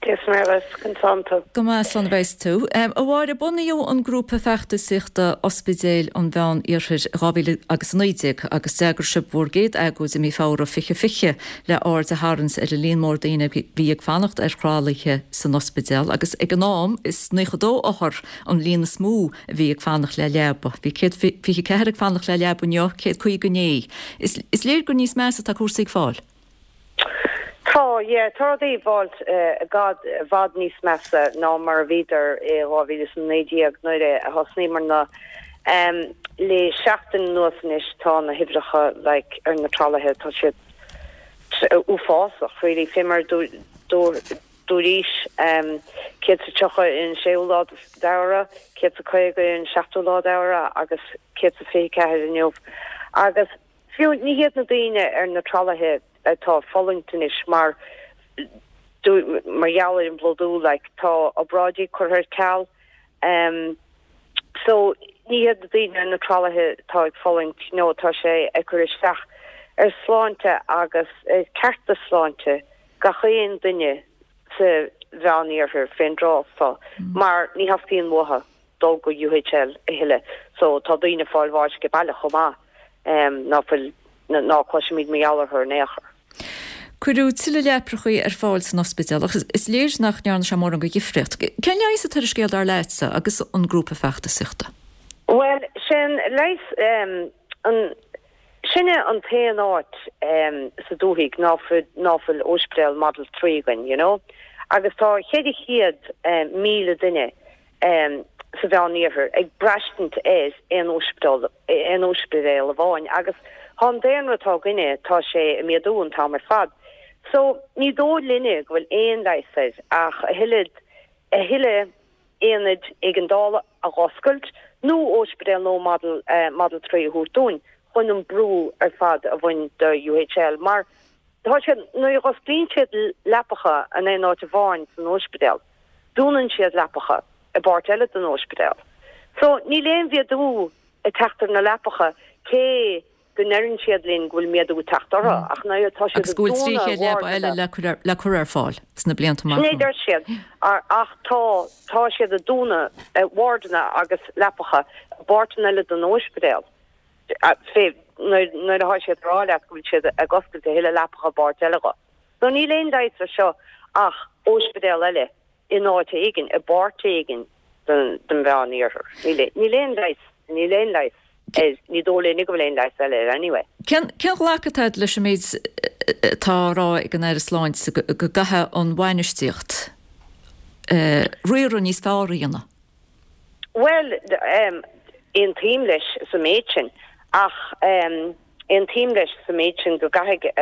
Dia is Muire dhuit, conas tánn tú? Go maith, slán a bheas tú. A Mháire, bunaíodh an grúpa feachtasaíochta Ospidéil an Mheán Iarthair i 2019 agus d'eagraigh sibh bhur gcéad agóid i mí Feabhra 2020 le aird a tharraingt ar an líon mór daoine a bhí ag fanacht ar thralaithe san ospidéal agus ag an am is 92 othar an líon is mó a bhí ag fanacht le leaba. Bhí 124 ag fanacht le leaba inniu, 150 inné. Is léir gur níos measa atá cúrsaí ag fáil. Tá, yeah, tá rudaí ag fáilt i bhfad, i bhfad níos measa ná mar a bhíodar i 2019 nuair a thosnaíomarna. Le seachtain anuas anois tá na huimhreacha like ar na tralaithe, tá siad uafásach really, fé mar dúraís, 130 ar an séú lá d'Fheabhra, 150 ar an seachtú lá d'Fheabhra agus 124 inniu. Agus Fiú, ní hiad na daoine ar na tralaithe atá ag fulaingt anois mar mar gheall ar an bplódú, like, tá obráidí curtha ar ceal. Em, so, ní hiad na daoine ar na tralaithe atá ag fulaingt, no, tá sé ag cur isteach ar sláinte agus ar cearta sláinte gach aon duine sa Mheán-Iarthar fén dtráth so, mar ní theastaíonn uathu. dul go UHL a thuilleadh so tá daoine ag fáil bháis age baile chomh maith ná fuil, ná cloisimid mar gheall orthu in aon chor. Cuireadh tuilleadh leaprachaí ar fáil san ospidéal ach is léir nach ndearna sé mórán de dhifríocht. Cén leigheas atá ar an scéal dar leatsa agus an grúpa feachtasaíochta? Bhuel, sé'n leigheas, an, Sinne an t-aon áit sa dúthaigh ná fuil, ná fuil óispidéal Model 3 againn, you know. Agus tá 400,000 duine sa Mheán-Iarthar ag braistint ar aon óispidéal, aon óispidéal amháin agus tá an daonra atá againne, tá sé ag méadú an t-am ar fad. So, ní dóigh linne go bhfuil aon leigheas air ach a thuilleadh, a thuilleadh aonaid éigeandála a dh'oscailt nó óispidéal nua Model Model 3 a thabhairt dúinn chun an brú ar fad a bhaint de UHL mar tá siad, nuair a dh'osclaíonn siad leapacha in aon áit amháin san óispidéal, dúnann siad leapacha i bpáirt eile den óispidéal. So níl aon mhéadú ag teacht ar na leapacha cé go ndeireann siad linn go bhfuil méadú ag teacht orthu, ach nuair atá siad Agus go bhfuil 300 leaba eile le cur ar fáil sna blianta amach Sin é deir siad, ach tá, tá siad ag dúnadh wardanna agus leapacha i bpáirteanna eile den óispidéal. Fé nuair atá siad ag rá leat go bhfuil siad ag oscailt a thuilleadh leapacha i bpáirt eile dho. So níl aon leigheas ar seo ach óispidéal eile in áit éigin, i bpáirt éigin den Mheán-Iarthar. Níl aon leigheas, níl aon leigheas air, ní dóigh linne go bhfuil aon leigheas eile air anyway. Cén ghlacadh atá agat leis an méid atá á rá ag an Aire Sláinte go gcaithfidh an bhainistíocht riaradh níos fearr a dhéanamh? Bhuel, aontaím leis sa méid sin, ach aontaím leis sa méid sin go gcaithfidh,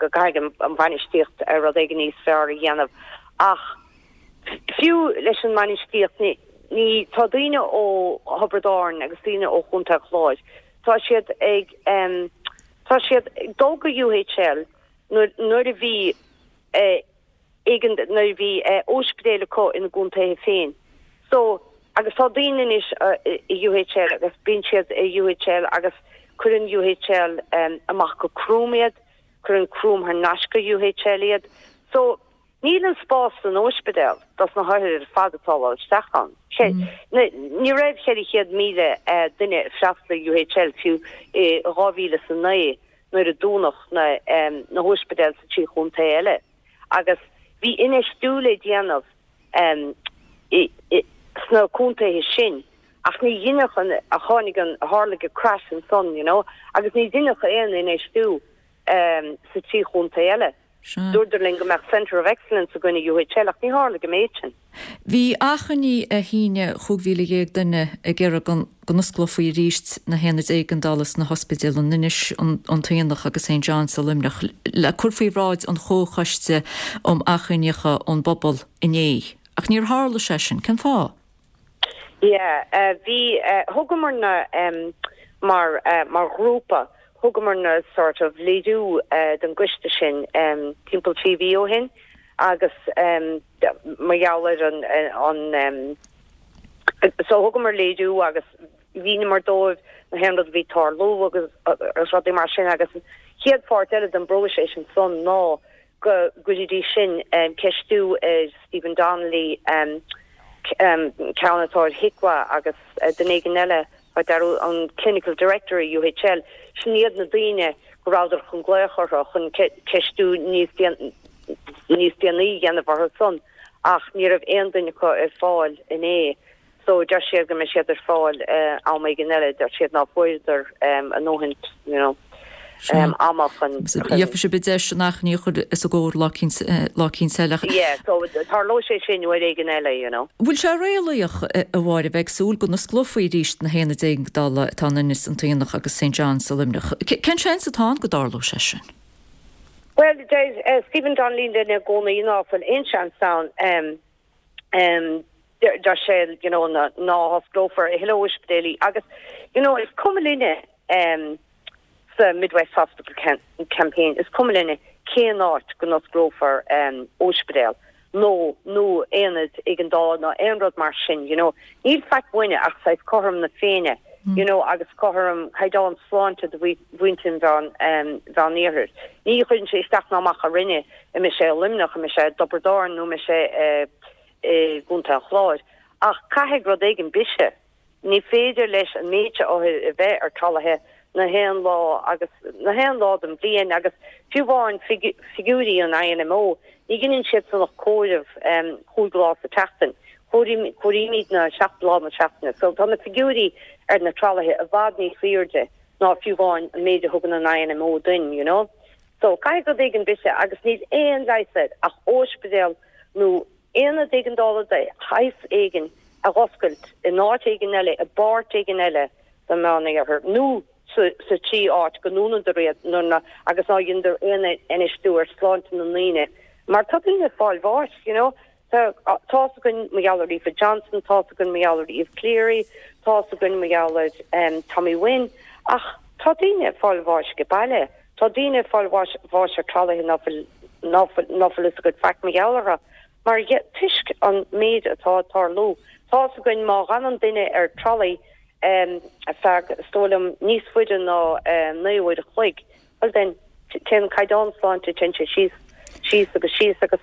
go gcaithfidh an bhainistíocht rud éigin níos fearr a dhéanamh. Ach fiú leis an mbainistíocht, ní, ní, tá daoine ó Thiobraid Árann agus daoine ó Chontae an Chláir, tá siad ag, tá siad ag dul go UHL nuair, nuair a bhí, éigin nuair a bhí óispidéil acu ina gcontaetha féin. So, agus tá daoine anois i UHL agus bíonn siad i UHL agus cuireann UHL amach go Croom iad, cuireann Croom thar n-ais go UHL iad. So, níl an spás san óispidéal dos na hothair ar fad atá ag dul isteach ann. Ní raibh 400,000 duine ag freastal ar UHL fiú i 2009 nuair a dúnadh na hóispidéil sa trí chontae eile agus bhí infheistiú le déanamh sna contaetha sin ach ní dheineadh an, tháinig an, tharlaigh an crash ansan you know agus ní dheineadh aon infheistiú sa trí chontae eile. Dúradar linn go mbeadh Centre of Excellence againn i UHL ach ní tharlaigh an méid sin. Bhí achainí ar shíneadh 15,000 duine ag iarraidh go n-osclófaí arís na haonaid éigeandála sna hospidéil in Inis, an tAonach agus St John's i Luimneach le cur faoi bhráid an Chomhchoiste um Achainíocha ón bPobal inné. Ach níor tharla sé sin. Cén fáth? Yeah, bhí, thugamar-na mar, mar ghrúpa, thugamar-na sort of léiriú don gcoiste sin timpeall 3 mhí ó shin agus mar gheall ar an, an, so thugamar léiriú agus mhíníomar dóibh na haon rud a bhí ag tarlú agus rudaí mar sin agus an chéad pháirt eile den bpróiseas ansan ná go gcuirfidís sin ceistiú ar Stephen Donnelly, ceann atá ar HIQA agus duine éigin eile, an Clinical Director i UHL, sin iad na daoine go rabhadar chun glaoch orthu chun ceistiú níos níos déanaí a dhéanamh orthu san ach ní raibh aon duine acu ar fáil inné. So deir siad go mbeidh siad ar fáil am éigin eile, deir siad ná fuaireadar a ndóthain, you know, ama chun. Gheobhaidh sibh deis an achainí a chur os a gcomhair lá eicínt eile. Yeah, so tarlóidh sé sin uair éigin eile, you know. Bhfuil sé réalaíoch, a Mháire, bheith ag súil go n-osclófaí arís na haonaid éigeandála atá in Inis, an tAonach agus St John's i Luimneach? Cén seans atá ann go dtarlódh sé sin? Bhuel, deir Stephen Donnelly linn i gcónaí ná fuil aon seans ann. Deir sé you know ná hosclófar a thuilleadh ospidéilí agus you know is cuma linne sa Midwest Hospital Campaign, is cuma linne cén áit go n-osclófar ospidéal nó nó aonad éigeandála nó aon rud mar sin you know. Níl faic uainne ach saghas cothrom na Féinne you know agus cothrom caighdeán sláinte do mhuintir an Mheán Iarthair. Ní chuireann sé isteach ná amach orainne an mbeidh sé i Luimneach, an mbeidh sé i dTiobraid Árann nó an mbeidh sé i gContae an Chláir. Ach caithfidh rud éigin biseadh. Ní féidir leis an méid seo othair a bheith ar tralaithe na haon lá agus na haon lá den bhliain agus fiú amháin figiúirí an INMO, ní dheineann siad san ach comhaireamh 5 lá sa tseachtain. Comhairímidne 7 lá na seachtaine. So tá na figiúirí ar na tralaithe i bhfad níos aoirde ná fiú amháin an méid a thugann an INMO duinn, you know. So, caithfidh rud éigin biseadh agus níl aon leigheas air ach óispidéal nó aonad éigeandála de shaghas éigin a dh'oscailt in áit éigin eile, i bpáirt éigin eile den Mheán-Iarthar nó sa sa trí áit go ndúnadar iad nuair ná agus ná dheineadar aon infheistiú ar sláinte na ndaoine mar tá daoine ag fáil bháis, you know. Tá tá's againn mar gheall ar Aoife Johnson, tá's againn mar gheall ar Eve Cleary, tá's againn mar gheall ar Tommy Wynne, ach tá daoine ag fáil bháis age baile, tá daoine ag fáil bháis bháis ar tralaithe ná fuil ná fuil ná fuil fhios agat faic mar gheall orthu mar toisc an méid atá ag tarlú. Tá's againn má dh'fhanann duine ar tralaí ar feadh, is dóigh liom, níos faide ná 9 uair a chloig, Bhuel then, téann caighdeán sláinte, téann sé síos, síos agus síos agus.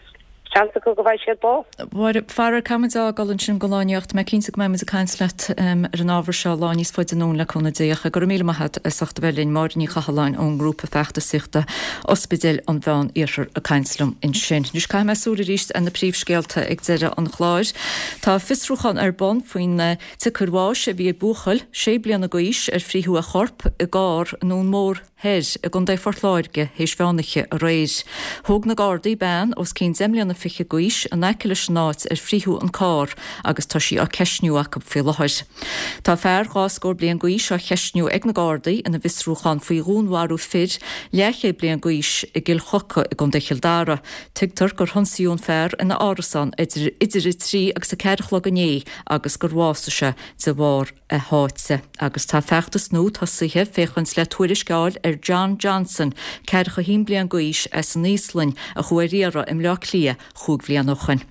Seans acu go bhfaighidh siad bás. Mháire, faraor, caithfimid a fhágáil ansin don lá inniu ach tá mé cinnte go mbeimid ag caint leat ar an ábhar seo lá níos faide anonn le cúnamh Dé. Ach go raibh míle maith agat as ucht a bheith linn. Máire Ní Chathalláin ón ngrúpa feachtasaíochta Ospidéil an Mheán Iarthair ag caint liom ansin. Anois caithfidh mé súil arís ar na príomhscéalta ag deireadh an chláir. Tá fiosrúchán ar bun faoin tsiocair bháis a bhí ag buachaill sé bliana d'aois ar frítheadh a chorp i gcarr i nDún Mór Thoir i gContae Phort Láirge théis mheánoíche aréir. Thóg na Gardaí bean os cionn deich mbliana fichead d'aois in aice leis an áit ar frítheadh an carr agus tá sí á ceistniú acu faoi láthair. Tá fear dhá scór bliain d'aois á cheistniú ag na Gardaí ina bhfiosrúchán faoi dhúnmharú fir leathchéad bliain d'aois i gCill Choca i gContae Chill Dara. Tuigtear gur hionsaíodh an fear ina árasán idir 3 agus 4 a chlog inné agus gur bhásaigh sé de bharr a sháite agus tá feachtas nua tosaithe féachaint le tuairisc a fháil ar John Johnson, 41 bliain d'aois as an Íoslainn, a chuaigh ar iarraidh i mBleá Cliath chúig bhliana ó shoin.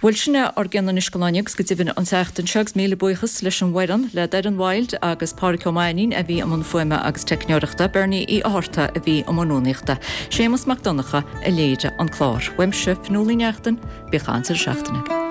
Bhuel, sin é ár gcion anois don lá inniu agus go deimhin an tseachtain seo agus míle buíochas leis an bhfoireann, le Doireann Wild agus Pádraic Ó Mainnín a bhí i mbun fuaime agus teicneoireachta, Bernie Uí Fhátharta a bhí i mbun rúnaíochta, Séamus Mac Donncha a léirigh an clár. Uaimse, Fionnuala Ní Neachtain, bíodh an-deireadh seachtaine agaibh.